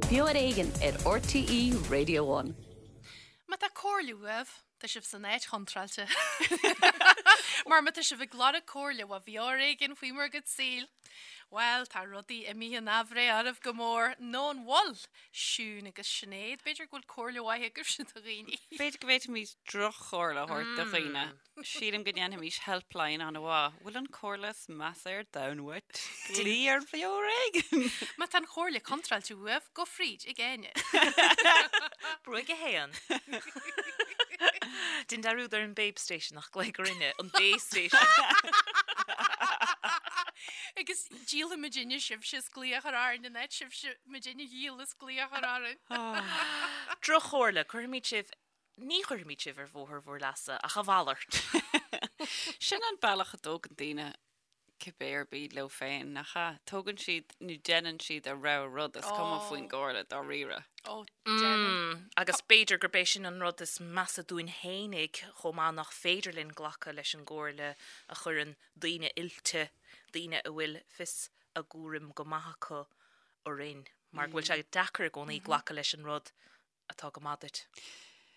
Beo ar Éigean ar RTÉ Radio One. Má tá comhairle uaibh, tá sibh san áit chontráilte. Mar má tá sibh ag lorg comhairle ó Bheo ar Éigean faoi bhur gcuid saoil, bhuel, tá rudaí imithe in aimhréidh oraibh go mór, nó an bhfuil? Siún agus Sinéad, b'fhéidir go bhfuil comhairle mhaith agaibhse do dhaoine. B'fhéidir go bhféadfaimis droch-chomhairle a thabhairt do dhaoine. Sílim go ndéanfaimis helpline an-mhaith. Bhfuil an chomhairle is measa ar domhan uait? Glaoigh ar Bheo ar Éigean! Má tá an chomhairle contráilte uaibh, gabh fríd ag Áine. Brúigh 1. Déan dearúd ar an Babe Station ach glaoigh orainne, an Bay Station. Agus díolfaidh muidinne sibhse as glaoch a chur orainn in áit sibhse muidinne a dhíol as glaoch a chur orainn. Droch-chomhairle, cuirfimid sibh Ní chuirfimid sibh ar bhóthar bhur leasa, ach a mhalairt. Sin an bealach a dtógann daoine cibé ar bith leo féin, nach ea? Tógann siad nó déanann siad a rogha rud, is cuma faoin gcomhairle dáiríre. Ó, déanann. Agus b'fhéidir gurb é sin an rud is measa dúinn fhéinig chomh maith, nach féidir linn glacadh leis an gcomhairle a chuireann daoine oilte, daoine a bhfuil fios a gcúraim go maith acu orainn, mar go bhfuil sé deacair i gcónaí glacadh leis an rud atá go maith duit.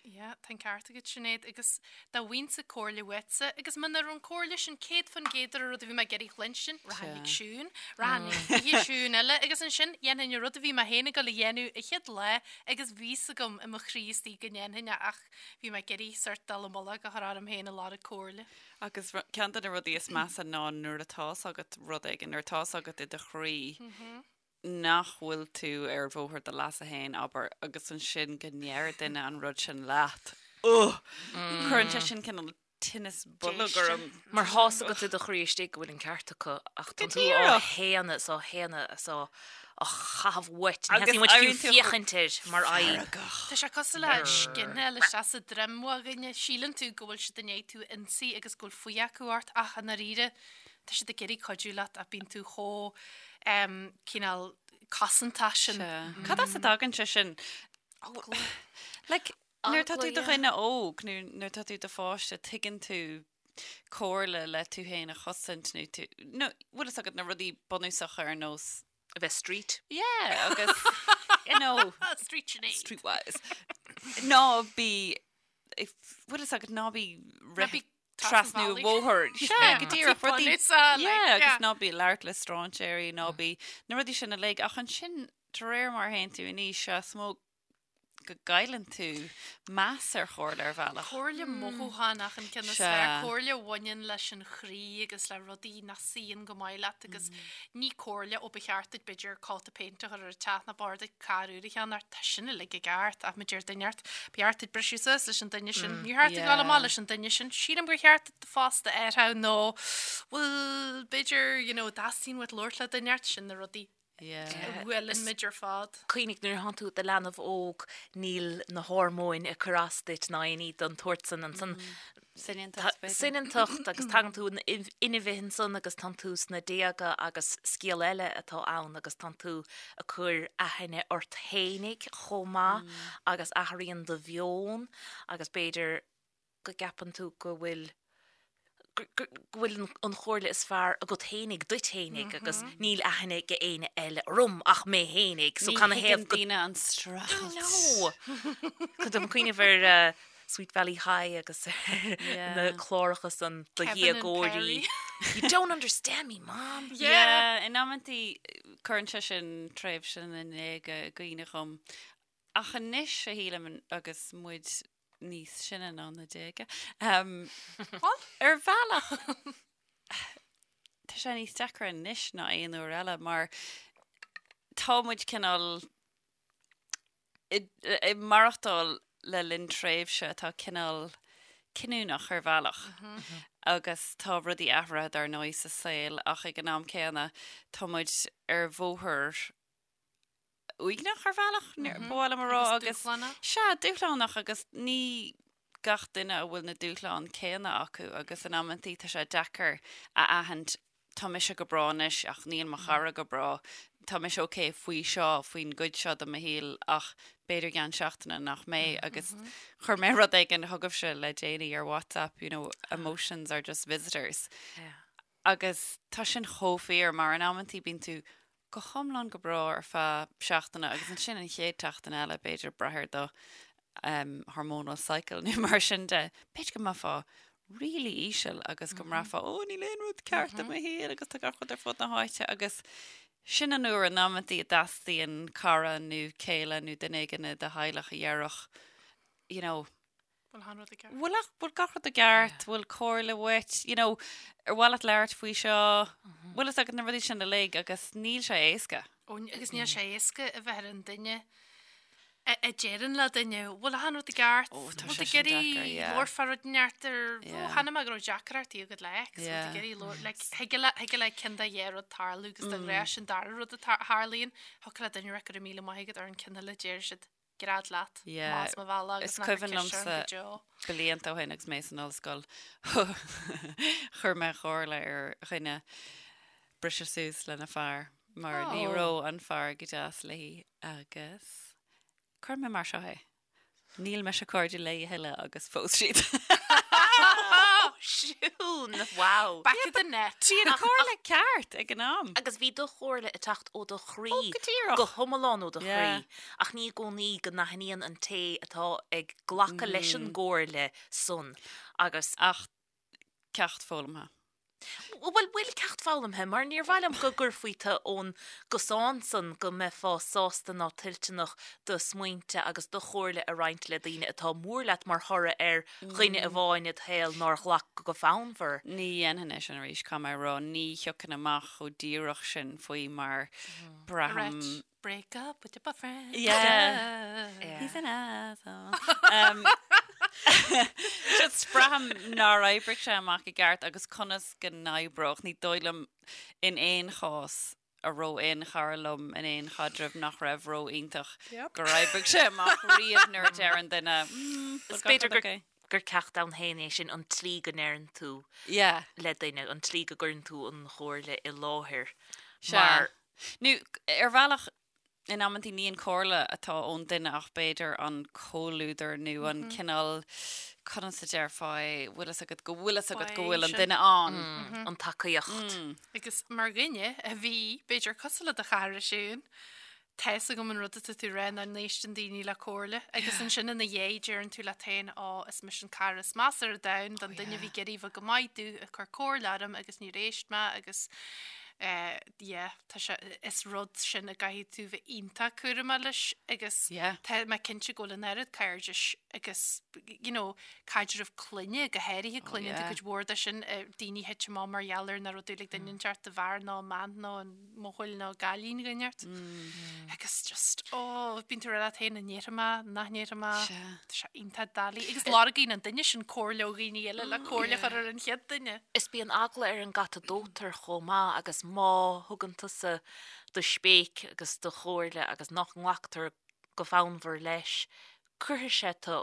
Yeah, tá an ceart agat Sinéad, agus dá bhfaighinnse comhairle uaitse, agus muna raibh an comhairle sin 100% ar an rud a bhí mé ag iarraidh chluinstin, rachainn ag Siún, rachainn ag 20 Siún eile, agus ansin dhéanfainn an rud a bhí mé féin ag dul a dhéanamh an chéad lá agus bhí fhios agam i mo chroí istigh go ndéanfainn é ach bhí mé ag iarraidh sort dul i mullach a chur orm féin ag lorg comhairle. Agus ceann de na rudaí is measa ná nuair atá's agat rud éigin, nuair atá's agat i do chroí, nach bhfuil tú ar bhóthar do leasa féin, abair, agus ansin go ndeir duine an rud sin leat. Ugh! Cuireann sé sin cineál tinneas boilg orm. Mar tá's agat i do chroí istigh go bhfuil an ceart acu ach tá tú á shéanadh is á shéanadh is á chaitheamh uait. Ní theastaíonn uait fiú féachaint air mar fhadhb. Tá sé cosúil le scinneáil isteach sa droim ó dhuine. Síleann tú go bhfuil siad i ndiaidh tú a ionsaí agus go bhfuil fuath acu ort ach i ndáiríre Tá siad ag iarraidh cuidiú leat ach bíonn tú chomh cineál cosantach sin. Sea. Cad as a dtagann sé sin? Eagla. Like, nuair atá tú i do dhuine óg, nó nuair atá tú i do pháiste, tuigeann tú comhairle le tú féin a chosaint nó tú, nó bhfuil fhios agat na rudaí bunúsacha ar nós A bheith street. Yeah, agus, you know. Street Sinéad. Streetwise. Ná bí, bhfuil fhios agat, ná bí rith trasna an bhóthair. Sea, go díreach, rudaí, yeah, agus ná bí ag labhairt le strainséirí, ná bí, na rudaí sin uilig, ach ansin, de réir mar a théann tú in aois, sea, is mó go gcailleann tú meas ar chomhairle ar bhealach. Comhairle mothúchánach an ceann is fearr, comhairle a bhaineann leis an chroí agus le rudaí nach suíonn go maith leat agus ní comhairle ó ba cheart duit b'fhéidir cóta péinte a chur ar an teach nó ba chóir duit carr úr a cheannach, tá sin uilig i gceart ach má deir duine ort, ba cheart duit briseadh suas leis an duine sin, níor cheart duit dul amach leis an duine sin, sílim gur cheart duit do phost a athrú nó bhuel b'fhéidir you know dteastaíonn uait labhairt le duine ort, sin na rudaí a bhuaileann muid ar fad. Cuimhnigh, nuair atánn tú i do leanbh óg, níl na hormóin ag cur as duit ná aon ní den tsórt san ansan. Soineantacht, b'fhéidir. Soineantacht agus tagann tú in inmhe ansan agus tánn tú sna déaga agus scéal eile atá ann agus tánn tú ag cur aithne ort fhéinig chomh maith agus athraíonn do mheon agus b'fhéidir go gceapann tú go bhfuil go bhfuil an chomhairle is fearr agat fhéinig duit fhéinig agus níl aithne ag éinne eile orm ach mé fhéinig so can a thaobh go daoine an streachailt. No! Tá mé ag cuimhneamh ar Sweet Valley High agus ar na cláracha san do dhéagóirí. You don't understand me, Mom! Yeah, in amantaí cuireann sé sin tréimhse na ndéaga i gcuimhne dhom. Ach anois a shílim agus muid níos sine ná na déaga. Ar bhealach tá sé níos deacra anois ná aon uair eile mar tá muid cineál ag maireachtáil le linn tréimhse atá cineál cinniúnach ar bhealach agus tá rudaí athraithe dar ndóigh sa saol ach ag an am céanna tá muid ar bhóthar uaigneach ar bhealach, ba mhaith liom a rá agus dúshlánach. Sea, dúshlánach agus ní gach duine a bhfuil na dúshláin céanna acu agus in amantaí tá sé deacair a aithint tá mise go breá anois ach níl mo chara go breá, tá mise ok faoi seo, faoin gcuid seo de mo shaol ach b'fhéidir i gceann seachtaine nach mbeidh agus chuir mé rud éigin chugaibhse le déanaí ar WhatsApp, you know, emotions are just visitors. Agus tá sin chomh fíor mar in amantaí bíonn tú. go hiomlán go breá ar feadh seachtaine agus ansin an chéad tseachtain eile, b'fhéidir, brath ar do hormonal cycle nó mar sin de, b'fhéidir go mbeifeá really íseal agus go mbraithfeá, ó, níl aon rud ceart i mo shaol agus tá gach rud ar fud na háite agus sin an uair in amantaí a dteastaíonn cara nó céile nó duine éigin i do theaghlach a dhéarfadh, you know, Bhfuil achan rud i gceart? Bhfuil ach, bhfuil gach rud i gceart, bhfuil comhairle uait, you know, ar mhaith leat labhairt faoi seo, bhfuil fhios agat na rudaí sin uilig agus níl sé éasca. Ó, agus níl sé éasca a bheith ar an duine a a deireann le duine, bhfuil achan rud i gceart, Ó, tá bhfuil sé tú ag sin iarraidh deacair, yeah. labhairt fá rud inteacht ar, ó, Yeah. chonaic mé go raibh deacrachtaí agat le ex, bhfuil tú Yeah. ag iarraidh labhairt, like, thig le, thig le ceann de dhá rud tarlú agus de ghnáth sin dara rud a tar- tharlaíonn, thiocfadh le duine a rá go raibh míle maith agat ar an ceann eile, deir siad. Gread leat, Yeah, más mo bhealach agus is nach raibh cuimhin ceist orm liomsa go deo. blianta ó shin agus mé san ollscoil, chuir mé comhairle ar dhuine briseadh suas lena fear mar ní Oh. raibh an fear go deas léi agus chuir mé mar seo é, níl mise cairde léi a thuilleadh agus phós siad. Siún! Wow! Back of the net. Bhí an chomhairle ceart ag an am. Agus bhí do chomhairle ag teacht ó do chroí. Ó, go díreach. Go hiomlán ó do Yeah. chroí. Ach ní i gcónaí go n-aithníonn an té atá ag glacadh leis an gcomhairle san agus. Ach ceacht foghlamtha. Bhuel, bhfuil ceacht foghlamtha, mar níor mhaith liom go gcuirfí tú ón gcosán san go mbeifeá sásta ná toilteanach do smaointe agus do chomhairle a roinnt le daoine atá mór leat mar thoradh ar dhuine amháin id shaol nár ghlac go fonnmhar. Ní dhéanfainn é sin arís, caithfidh mé a rá. Ní thiocfainn amach chomh díreach sin faoi mar braithim. Right. Break up with your boyfriend. Yeah. He's an asshole. Um, just braithim nár oibrigh sé amach i gceart agus conas go n-oibreodh. Ní dóigh liom in aon chás a raibh aon chara liom in aon chaidreamh nach raibh ró-iontach gur oibrigh sé amach riamh nuair a deir an duine, mm, Is b'fhéidir gur gur ceacht ann féin é sin an tslí go ndeireann tú Yeah. le duine, an tslí go gcuireann tú an chomhairle i láthair. Sea. Mar Nó ar bhealach, in amantaí ní an chomhairle atá ón duine ach b'fhéidir an comhluadar nó an cineál, conas a déarfá é, bhfuil fhios agat go bhfuil fhios agat go bhfuil an duine ann. An tacaíocht. Agus mar dhuine a bhí, b'fhéidir cosúil le do chara Siún, tá fhios agam an rud atá tú a rá nach n-éisteann daoine le comhairle agus ansin ina dhiaidh deireann tú leat féin Ó, is mise an cara is measa ar domhan don duine a bhí ag iarraidh bheith go maith domh ag cur comhairle orm agus níor éist mé agus eh, yeah, tá sé, is rud sin a gcaithfidh tú bheith iontach cúramach leis agus Yeah. tá mé cinnte go bhfuil an oiread cairdis agus, you know, caidreamh clainne, go háirithe clainne, yeah. tá cuid mhór de sin, eh, daoine thit amach mar gheall ar nach raibh dúil ag duine inteacht i bhfear nó i mbean nó an mbuachaill nó cailín inteacht. Agus just, oh, bíonn tú ag rá leat féin an ndéarfaidh mé, nach ndéarfaidh mé, Sea. tá sé iontach doiligh. Agus lorgaíonn an duine sin comhairle ó dhaoine eile le comhairle a chur ar an chéad duine. Is bíonn eagla ar an gcat a dóitear chomh maith agus má thugann tusa do spéic agus do chomhairle agus nach nglactar go fonnmhar leis, cuirfidh sé tu,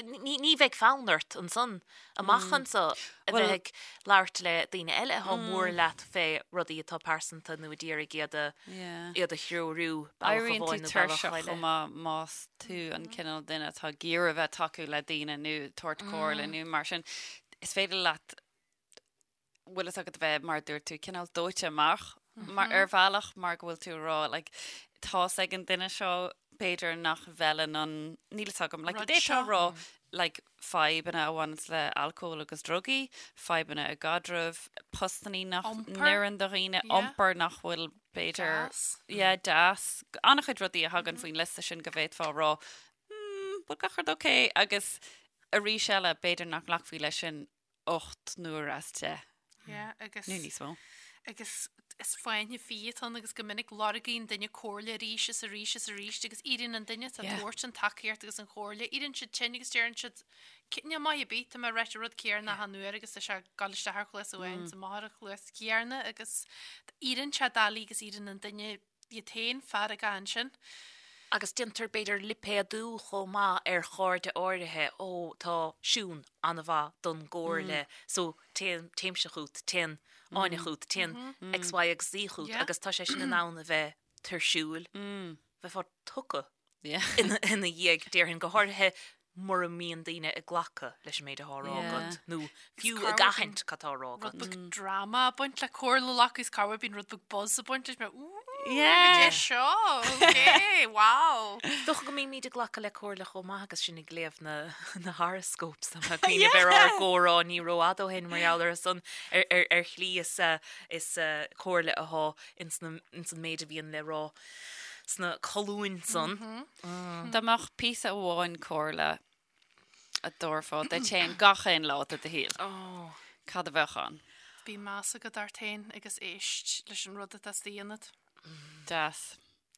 ní bheidh fonn ort ansan amach anso a bheith ag labhairt le daoine eile atá mór leat fé rudaí atá pearsanta nó a d'iarraidh iad a iad a threorú bealach Éiríonn tú amháin nó bealach tuirseach eile. chomh maith más tú an cineál duine atá ag iarraidh a bheith ag tacú le daoine nó tabhairt comhairle nó mar sin. Is féidir leat bhfuil fhios agat a bheith, mar a dúirt tú, cineál dóite amach mar ar bhealach mar go bhfuil tú ag rá like tá's ag an duine seo b'fhéidir nach bhfeileann an, níl fhios agam, like Rud d'fhéadfá seo. rá like fadhbanna a bhaineanns le alcól agus drugaí, fadhbanna i gcaidreamh, postannaí nach Iompar. n-oireann do dhaoine, Yeah. iompar nach bhfuil b'fhéidir Deas. yeah, deas. An-chuid rudaí a thagann faoin liosta sin go bhféadfá a rá hmm, bhfuil gach rud okay agus arís eile b'fhéidir nach nglacfaí leis sin 8 n-uair as 10. Yeah, agus. Nó níos mó. Agus is fáinne fí atá ann agus go minic lorgaíonn duine comhairle arís is arís is arís agus éiríonn an duine atá ag Yeah. tabhairt an tacaíocht agus an chomhairle, éiríonn siad tinn agus deireann siad, Níl maith ar bith, tá mé ag ráit an rud céanna achan uair agus tá sé ag dul isteach ar chluas amháin is amach ar an chluas chéanna agus éiríonn sé doiligh agus éiríonn an duine iad féin feargach ansin. Agus déantar b'fhéidir lipéadú chomh maith ar chairde áirithe, ó tá Siún an-mhaith don gcomhairle so téann, téimse chút, téann Áine chút, téann X, Y agus Z chút agus tá sé sin in ann a bheith tuirsiúil, bheifeá tugtha ina dhiaidh, déarfainn, go háirithe. mura mbíonn daoine ag glacadh leis an méid atá á rá agat nó fiú ag aithint cad tá á rá agat. Rud beag drama ag baint le comhairle a ghlacadh is corruair bíonn rud beag buzz ag baint leis mar ooh goidé seo ok wow. Is dócha go mbímid ag glacadh le comhairle chomh maith agus sinn ag léamh na na horoscopes tá mé ag cuimhneamh ar ár gcomhrá ní rófhada ó shin mar gheall ar san ar shlí is is comhairle atá ins an méid a bhíonn le rá sna colúin san. Dá mbeadh píosa amháin comhairle a dtabharfá duit féin gach aon lá de do shaol, cad a bheadh ann? Bíodh meas agat ort féin agus éist leis an rud atá istigh ionat. Deas.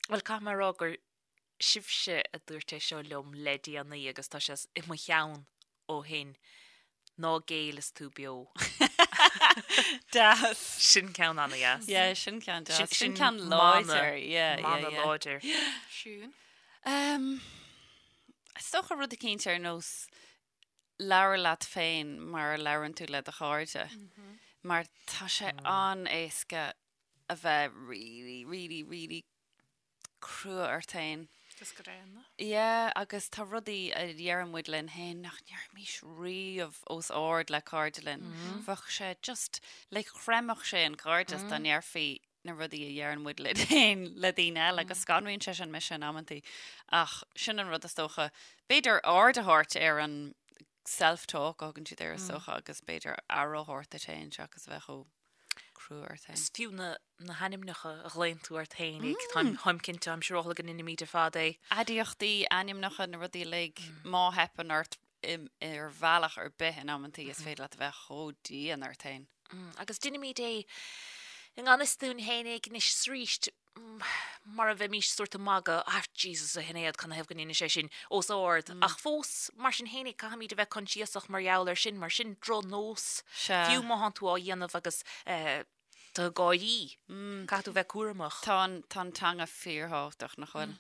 Bhuel, caithfidh mé a rá gur sibhse a dúirt é seo liom le déanaí agus tá sé i mo cheann ó shin, ná géill is tú beo. Deas. Sin ceann an-dheas. Yeah, sin ceann deas. Sin ceann láidir. Yeah, yeah, Mana yeah. láidir. Siún. Um, is dócha rud eicínt ar nós labhair leat féin mar a labhrann tú le do chairde. Mar tá sé an-éasca a bheith really, really, really crua ort féin. Agus gránna. Yeah, agus tá rudaí a dheireann muid linn féin nach ndéarfaimis riamh os ard le cairde linn. Bheadh sé just, like, chreimfeadh sé an cairdeas dá ndéarfaí na rudaí a dheireann muid linn féin le daoine eile agus scanraíonn sé sin mise in amantaí. Ach sin an rud is dócha, b'fhéidir aird a thabhairt ar an self-talk a thugann siad air is dócha agus b'fhéidir aire a thabhairt duit féin seachas a bheith chomh crua ort féin. Is fiú na na hainmneacha a ghlaonn tú ort féinig, táim táim cinnte, táim siúráilte go ndeinimid ar fad é. Aidiachtaí, ainmneacha, na rudaí uilig, má theipeann ort ar bhealach ar bith in amantaí is féidir leat a bheith chomh dian ort féin. Agus deinimid é i ngan fhios dúinn féinig anois is arís mar a bheimís sórt ag magadh, ah Jesus a Shinéad, canathaobh go ndeinis sé sin os ard. Ach fós, mar sin féinig, caithfimid a bheith coinsiasach mar gheall air sin, mar sin drochnós, fiú má thánn tú á dhéanamh agus tú ag gáirí, caithfidh tú bheith cúramach. Tá an, tá an teanga fíorthábhachtach, nach bhfuil?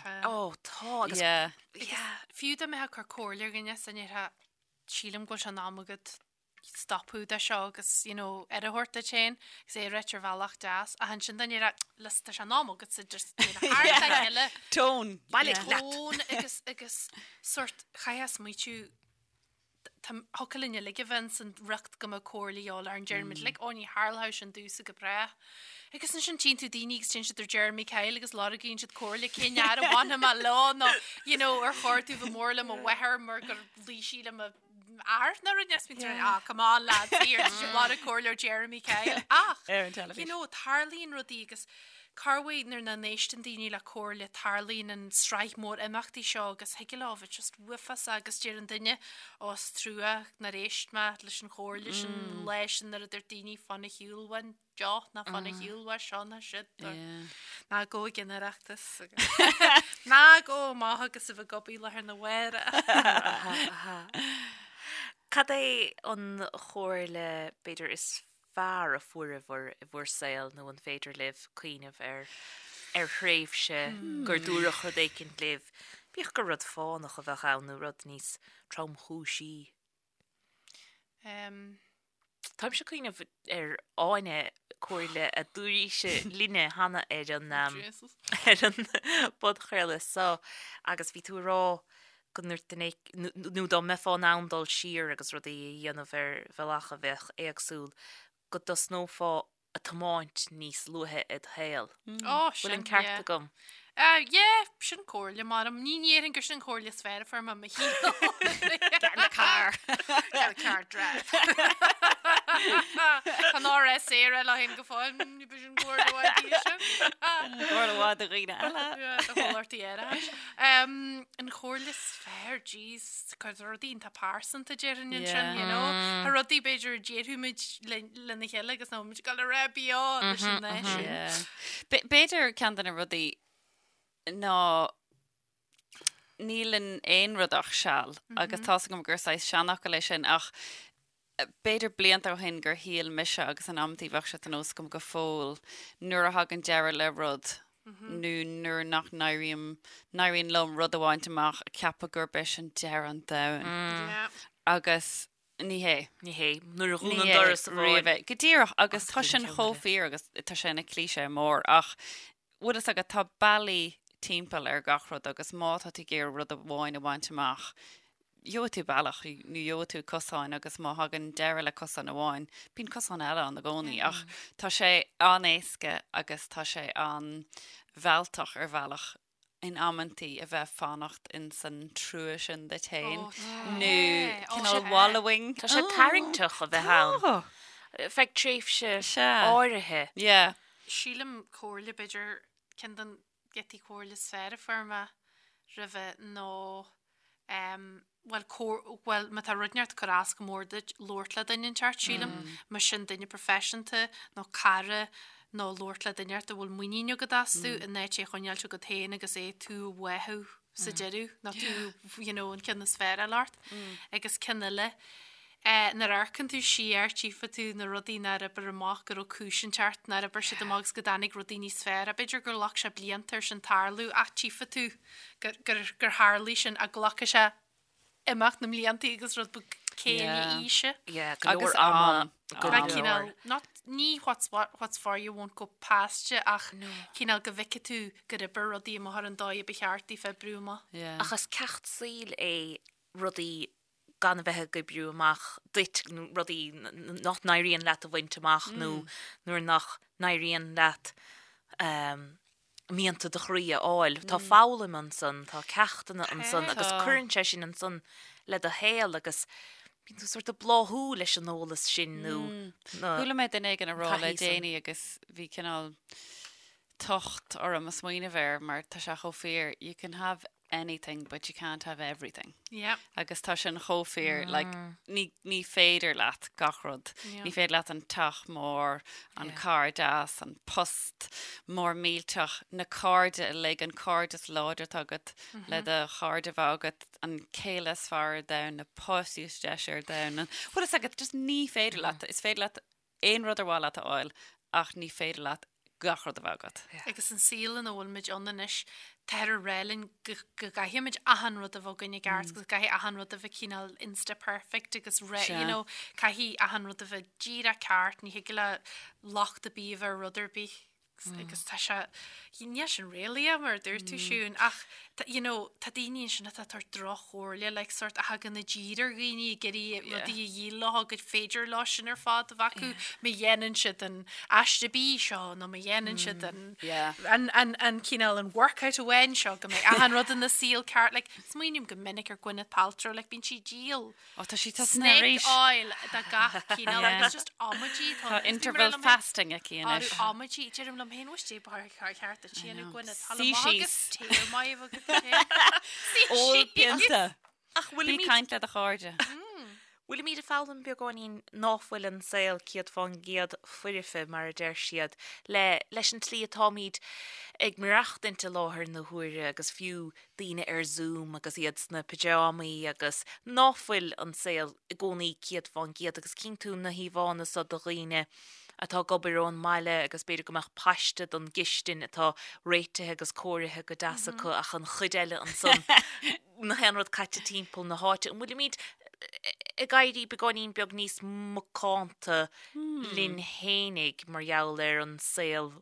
Tá. Ó, tá, agus. Yeah. Fiú dá mbeifeá ag cur comhairle ar dhuine, is ndéarfá, sílim go bhfuil sé in am agat stopadh de seo agus, you know, aire a thabhairt duit féin agus é a ráit ar bhealach deas. Ach ansin dá ndéarfá, listen, tá sé in am agatsa just déanamh thar a chéile. Tone. Bailigh leat. Tone agus, agus sórt, chaithfeá smaoitiú, tá, thiocfadh linn uilig a bheith ins an riocht go mbeadh comhairle a dhíobháil orainn, deirimid uilig, ó ní tharlódh sin domhsa go brách. Agus ansin tchíonn tú daoine agus téann siad ar Jeremy Kyle agus lorgaíonn siad comhairle cén fhear a bhainfidh mé leo nó, you know, ar chóir domh bheith mór le mo mháthair mar gur luigh sí le mo fhear nó rud níos mé ah come on lads here tá sibh ag lorg comhairle ó Jeremy Kyle ach Ar an teilifís. you know tarlaíonn rudaí agus corruair nuair nach n-éisteann daoine le comhairle tarlaíonn an sraith mór imeachtaí seo agus thig leo bheith just uafásach agus deir an duine ó is trua nár éist mé leis an chomhairle sin an lá sin nuair a dúirt daoine fan ar shiúl uainn deoch ná fan ar shiúl uaidh seo ná siúd Ná gabh ag an Oireachtas ná gabh amach agus a bheith ag obair lá arna mhárach. Cad é an chomhairle, b'fhéidir, is fearr a fuaireabhair i bhur saol nó an féidir libh cuimhneamh ar ar thréimhse gur dúradh rud éicint libh, bíodh gur rud fánach a bheadh ann nó rud níos tromchúisí? Táimse ag cuimhneamh ar Áine, comhairle a dúirt sí linne cheana ar an ar an bpodchraoladh seo agus bhí tú ag rá go ndúirt duine nó dá mbeifeá in ann dul siar agus rudaí a dhéanamh ar bhealach a bheadh éagsúil, go dtosnófá ag tiomáint níos luaithe id shaol. Ó, Bhfuil an sin, ceart yeah. agam? Uh, yeah, sin comhairle maram. Ní ndéarfainn gur sin an chomhairle is fearr a fuair mé i mo shaol. Get in the car. Get in the car, drive. Tá an RS saor le haghaidh go fóill, ní b'in sin comhairle mhaith í sin. Comhairle mhaith do dhaoine eile. Yeah, do chomhlachtaí aerachais. Um, an chomhairle is fearr, jeez, cuid rudaí iontach pearsanta déarfainn ansin, you know. Tá rudaí b'fhéidir a déarfaimid le lena chéile agus nach bhfuil muid ag dul a rá beo leis an náisiún. B'fhéidir ceann de na rudaí ná níl in aon rud ach seal agus tá's agam gur saghas seanfhocal é sin ach b'fhéidir blianta ó shin gur shíl mise agus in amantaí bheadh sé de nós agam go fóill nuair a thagann deireadh le rud nó nuair nach n-éirím, n-éiríonn liom rud a bhaint amach, ceapadh gurb é sin deireadh an domhain. Agus Ní hé. Ní hé. Nuair a dhún an doras amháin. Riamh é. Go díreach, agus tá sin chomh fíor agus tá sé ina cliché mór ach bhfuil fhios agat, tá bealaí timpeall ar gach rud agus má tá tú ag iarraidh rud amháin a bhaint amach, gheobhaidh tú bealach nó gheobhaidh tú cosán agus má thagann deireadh le cosán amháin, bíonn cosán eile ann i gcónaí. Ach tá sé an-éasca agus tá sé an-mhealltach ar bhealach in amantaí a bheith fanacht in san trua sin duit féin nó cineál wallowing. Tá sé tarraingteach a bheith ann. Feadh tréimhse áirithe. Yeah. Sílim comhairle b'fhéidir ceann den giotaí comhairle is fearr a fuair mé roimhe nó bhuel bhuel má tá rud inteacht ag cur as go mór duit labhairt le duine inteacht sílim más sin duine proifisiúnta nó cara nó labhairt le duine inteacht a bhfuil muinín agat astu in áit é a choinneáilt agat féin agus é tú a bháthadh sa deireadh nó tú you know an ceann is fearr a fháil ort agus ceann eile Nuair a amharcann tú siar, tchífidh tú na rudaí nár oibir amach, go raibh cúis inteacht nár oibir siad amach agus go dtáinig rudaí níos fearr. B'fhéidir gur ghlac sé blianta ar sin tarlú ach tchífidh tú gur, gur, gur tharlaigh sin ach glacfaidh sé imeacht na mblianta agus rud beag céille Yeah. aoise. Yeah, go leor Agus ama, am. go Am. leor. Cineál, not, ní what's, what, what's for you won't go past you ach cineál go bhfeicfidh tú gur oibir rudaí amach ar an dóigh a ba cheart daofa oibriú amach. Yeah. Ach is ceacht saoil é rudaí gan a bheith ag oibriú amach duit nó rudaí nach n-éiríonn leat a bhaint amach nó nuair nach n-éiríonn leat mianta do chroí a fháil. Tá foghlaim ansan, tá ceachtanna ansan agus cuireann sé sin ansan le do shaol agus bíonn tú sort ag bláthú leis an eolas sin nó na Chuala mé duine éigin ag rá le taithí san. déanaí agus bhí cineál tocht orm a smaoineamh air mar tá sé chomh fíor, you can have anything but you can't have everything. Yeah. Agus tá sin chomh fíor, like, ní, ní féidir leat gach rud. Yeah. Ní féidir leat an teach mór, an Yeah. carr deas, an post mór millteach, na cairde uilig, an cairdeas láidir atá agat le do chairde bheith agat, an céile is fearr ar domhan, na páistí is deise ar domhan. An, bhfuil fhios agat, just ní féidir leat, is féidir leat aon rud ar mhaith leat a fháil ach ní féidir leat gach rud a bheith agat. Agus an saol ina bhfuil muid ann anois, táthar ag rá linn go gcaithfidh muid achan rud a bheith againn i gceart agus go gcaithfidh achan rud a bheith cineál insta perfect agus re, you know, caithfidh achan rud a bheith díreach ceart, ní thig le locht ar bith a bheith ar rud ar bith. Agus tá sé, níl sin réalaíoch mar a dúirt tú Siún, ach you know, tá daoine ansin atá ag tabhairt droch-chomhairle, like sort a thagann i dtír ar dhaoine ag iarraidh rudaí a dhíol leo gur féidir leo sin ar fad a bheith acu, má dhéanann siad an aiste bídh seo nó má dhéanann siad an an an an cineál an workout amháin seo go mbeidh achan rud ina saol ceart, like smaoiním go minic ar Gwyneth Paltrow, like bíonn sí ag díol Ó, tá sí tosaithe Snake arís. oil de gach cineál Yeah. agus just amaidí Tá interval fasting aici anois. Amaidí, deirim liom féin bhfuil sé bar ceart a tíanú Gwyneth. Tá Suigh maith agus síos. téar maith agat féin. Suigh Ól síos. pionta. Ach Bí bhfuilimid caint le do chairde. Bhfuilimid ag foghlaim beagáinín ná fuil an saol 100% foirfe, mar a deir siad, le leis an tslí atáimid ag maireachtaint i láthair na huaire agus fiú daoine ar Zoom agus iad sna pyjámaí agus ná fuil an saol i gcónaí 100% agus cíonn tú na híomhánna so de dhaoine atá ag obair ón mbaile agus b'fhéidir go mbeadh paiste don gcistin atá réitithe agus cóirithe go deas acu ach an chuid eile ansan nach aon rud caite timpeall na háite. An bhfuilimid ag éirí beagáinín beag níos macánta linn fhéinig mar gheall ar an saol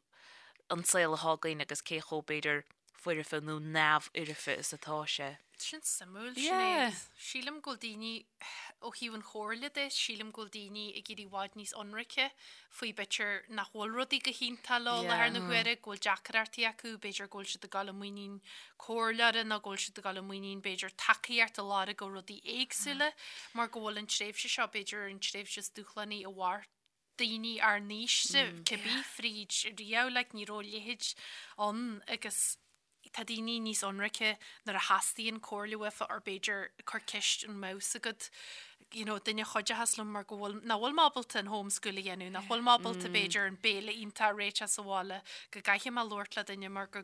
an saol atá againn agus cé chomh b'fhéidir foirfe nó neamhfhoirfe is atá sé. Sin suimiúil, Yeah. Sinéad. Sílim go bhfuil daoine, ó thaobh an chomhairle de, sílim go bhfuil daoine ag éirí i bhfad níos ionraice faoi b'fhéidir nach bhfuil rudaí go hiontach leo i láthair na huaire, go bhfuil deacrachtaí acu, b'fhéidir go bhfuil siad ag dul i muinín comhairleora nó go bhfuil siad ag dul i muinín b'fhéidir tacaíocht a lorg ó rudaí éagsúla mar go bhfuil an tréimhse seo b'fhéidir an tréimhse is dúshlánaí a mhair daoine ár n-aoise cibé fríd riamh, like, ní raibh a leithéid ann agus tá daoine níos ionraice nuair a theastaíonn comhairle uafa or b'fhéidir cur ceist an mbeadh fhios agat you know, duine a chuideochas liom mar go bhfuil, nach bhfuil mé ábalta an homeschool a dhéanamh, nach bhfuil mé ábalta b'fhéidir an béile iontach a réiteach sa bhaile, go gcaithfidh mé labhairt le duine mar go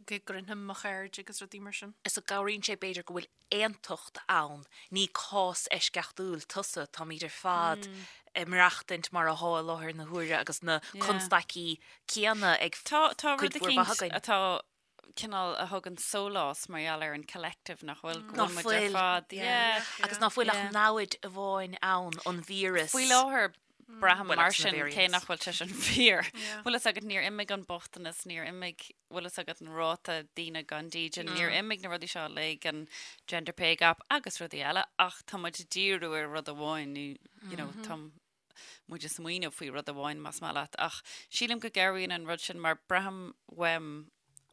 go gcronaim mo chairde agus rudaí mar sin. Is go gcabhraíonn sé b'fhéidir go bhfuil aontacht ann, ní cás eisceachtúil tusa, táimid ar fad ag maireachtaint mar atá i láthair na huaire agus na constaicí céanna ag Tá tá cuid rud mhór mhaith eicínt againn. atá cineál a thugann sólás mar gheall ar an collective nach bhfuil go Ná bhfuil muid ar fuil, fad. yeah. Yeah. Agus ná fuil ach Yeah. namhaid amháin ann, an víreas. Faoi láthair. Braithim mar sin cé nach bhfuil sé sin fíor. Bhfuil fhios agat níor imigh an bochtanas, níor imigh, bhfuil fhios agat an ráta daoine gan dídean, níor imigh na rudaí seo uilig, an gender pay gap agus rudaí eile ach tá muid ag díriú ar rud amháin nó you know tá muid ag smaoineamh faoi rud amháin más maith leat ach sílim go gcabhraíonn an rud sin mar braithim uaim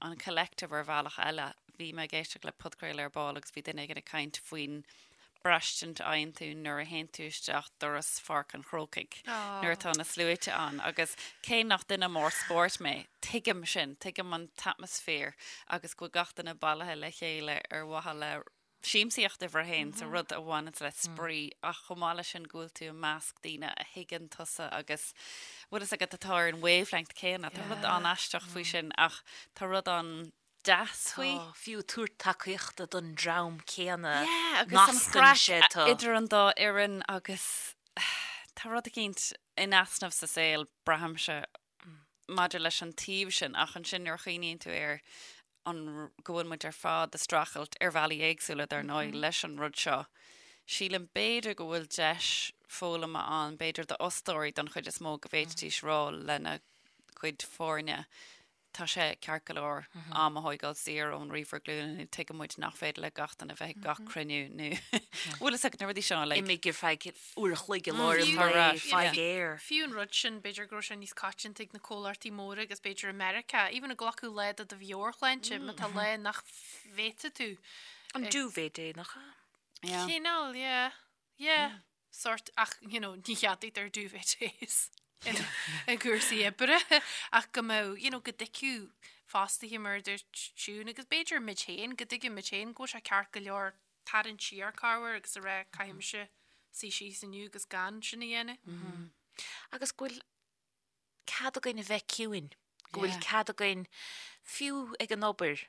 an collective ar bhealach eile. Bhí mé ag éisteacht le podchraoladh ar ball agus bhí duine éigin ag caint faoin braistint a fhaigheann tú nuair a théann tú isteach doras Pháirc an Chrócaigh nuair atá na sluaite ann agus cé nach duine mór spóirt mé, tuigim sin, tuigim an t-atmaisféar agus go bhfuil gach duine bailithe le chéile ar mhaithe le siamsaíocht uimhir a haon, so rud a bhaineanns le spraoi, ach chomh maith leis sin go bhfuil tú i measc daoine a thuigeann tusa agus bhfuil fhios agat atá ar an wavelength céanna. Tá rud an-aisteach faoi sin ach tá rud an-deas faoi. Tá, fiú tabhairt tacaíochta don dream céanna, Yeah, agus an chraic idir an dá fhoireann agus tá rud eicínt in easnamh sa saol, braithimse, maidir leis an taobh sin ach ansin nuair a chuimhníonn tú air an go bhfuil muid ar fad ag streachailt ar bhealaí éagsúla dar ndóigh leis an rud seo, sílim b'fhéidir go bhfuil deis foghlama ann, b'fhéidir d'fhostóirí don chuid is mó go bhféadfaidís rá lena gcuid foirne tá sé ceart go leor am a thóigeáil saor ón ríomhaire glúine nó tuigeann muid nach féidir le gach duine bheith ag gach cruinniú nó bhfuil fhios agat na rudaí seo like. Imigh ar feadh uair a chloig i lár an lae, faigh aer. Fiú an rud sin, b'fhéidir go raibh sé níos coitianta ag na comhlachtaí móra agus b'fhéidir i Meiriceá, even ag glacadh lá do do mheabhairshláinte, má tá lá nach bhféadfaidh tú. An duvet day, nach ea? Yeah. Cineál, yeah. Yeah. Sort, ach, you know, ní cheadaítear duvet days i gcúrsaí oibre, ach go mbeadh, you know, go dtuigfeadh fostaithe mar a dúirt Siún, agus b'fhéidir muid féin, go dtuigfeadh muid féin go bhfuil sé ceart go leor tarraingt siar corruair agus a rá caithfidh mise suí síos inniu agus gan sin a dhéanamh. Agus go bhfuil cead againn a bheith ciúin, go bhfuil cead againn, fiú ag an obair,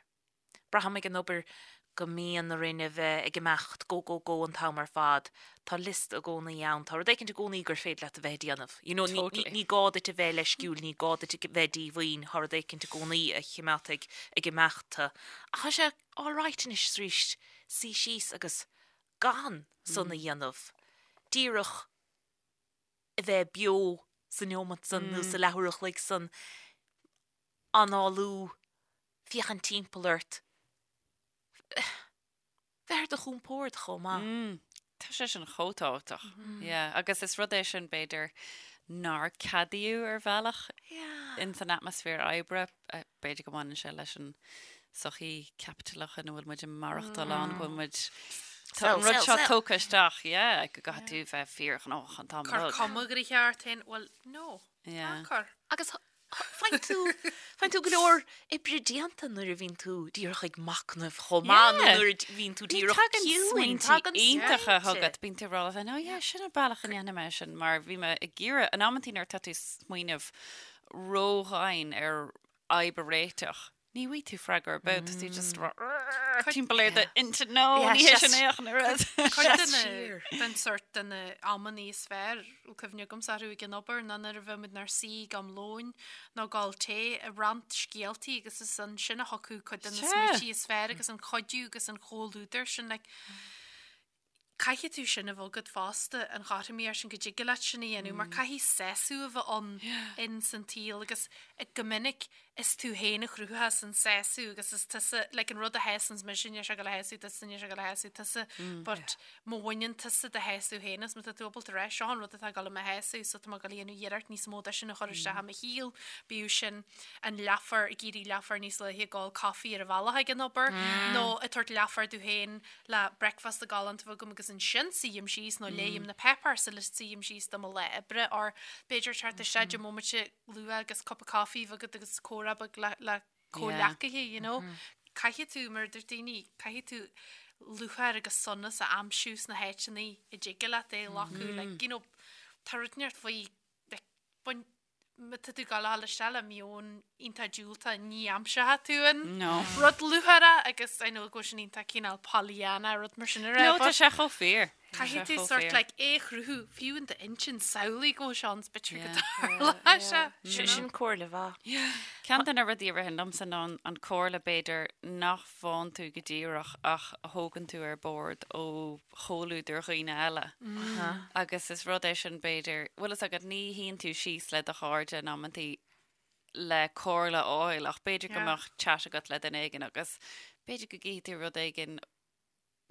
braithim ag an obair go mbíonn orainn a bheith ag imeacht go go go an t-am ar fad, tá liosta i gcónaí ann, tá rud éicint i gcónaí gur féidir leat a bheith ag déanamh. You know, ní, ní gá duit a bheith leisciúil, ní gá duit a bheith díomhaoin, tá rud éicint i gcónaí a chimeádfaidh ag imeacht tú. Ach tá sé all right anois is arís suí síos agus gan san a dhéanamh, díreach a bheith beo sa neomat san nó sa leathuair a chloig san, análú, féachaint timpeall ort, bheith ar do chompord chomh maith. Tá sé sin chomh tábhachtach. Yeah, agus is rud é sin b'fhéidir nár ceadaíodh ar bhealach in san atmaisféar oibre. B'fhéidir go mbaineann sé leis an sochaí caipitileach ina bhfuil muid ag maireachtáil ann, go bhfuil muid Tá an rud seo tógtha isteach, yeah, go gcaithfidh tú bheith fíorghnóthach an t-am Cur cuma gnoitheach ort féin, well, no, ná cur. Agus faigheann tú, faigheann tú go leor oibre déanta nuair a bhíonn tú díreach ag machnamh chomh maith nó nuair a bhíonn tú díreach ciúin. Tagann smaointe iontacha chugat, bíonn tú ag rá leat féin, oh yeah, sin an bealach a ndéanfaidh mé sin, mar bhí mé ag iarraidh, in amantaí nuair atá tú ag smaoineamh ródhomhain ar fhadhb a réiteach, ní bhfaighidh tú freagra ar bith, tá tú just timpeall ar d'intinn, no, ní hé sin é ach an oiread. Cuid de na, den sort de na amannaí is fearr, bhfuil cuimhne agamsa orthu ag an obair, ná nuair a bheadh muid inár suí ag am lóin nó ag ól tae, ag roinnt scéaltaí agus is ansin a thiocfadh cuid de na smaointí is fearr agus an cuidiú agus an comhluadar sin, like, Caithfidh tú sin a bheith agat fosta, an chothromaíocht sin, go dtig leat sin a dhéanamh, mar caithfidh sásamh a bheith ann in san tsaol agus go minic is tú féin a chruthaíos an sásamh agus is tusa, like an rud a shásanns mise, níl sé ag dul a shásamh tusa, níl sé ag dul a shásamh tusa, but má bhaineann tusa do shásamh féin as, má tá tú ábalta rá, seo an rud atá ag dul i mo shásamh so tá mé ag dul a dhéanamh iarracht níos mó de sin a chur isteach i mo shaol, bíodh sin an leathuair, ag éirí leathuair níos luaithe ag ól coffee ar an bhealach ag an obair nó ag tabhairt leathuair domh féin le bricfeasta galánta a bheith agam agus ansin suím síos nó léim na páipéir sula suím síos do mo lá oibre or b'fhéidir teacht isteach deich mbomaite luath agus cupa coffee a bheith agat agus comhrá beag le le comhghleacaithe, you know. Caithfidh tú, mar a deir daoine, caithfidh tú lúcháir agus sonas a aimsiú sna háiteanna a dtig leat é a ghlacadh, like, you know, tá rud inteacht faoi, like, bain, má tá tú ag gabháil isteach le meon iontach diúltach ní aimseoidh tú an rud lúcháireach agus I know go bhfuil sin iontach cineál Pollyanna rud mar sin a rá. No, tá sé chomh fíor. Caithfidh tú sort like é a chruthú fiú in d'intinn samhlaigh go bhfuil sé ann 's b'fhéidir go dtarlóidh sé. Sin comhairle mhaith. Ceann de na rudaí a ritheann liomsa ná an comhairle b'fhéidir nach bhfaigheann tú go díreach ach a thógann tú ar bord ó chomhluadar dhaoine eile. Agus is rud é sin b'fhéidir, bhfuil fhios agat ní shuíonn tú síos le do chairde in amantaí le comhairle a fháil ach b'fhéidir go mbeadh chat agat le duine éigin agus b'fhéidir go gcífidh tú rud éigin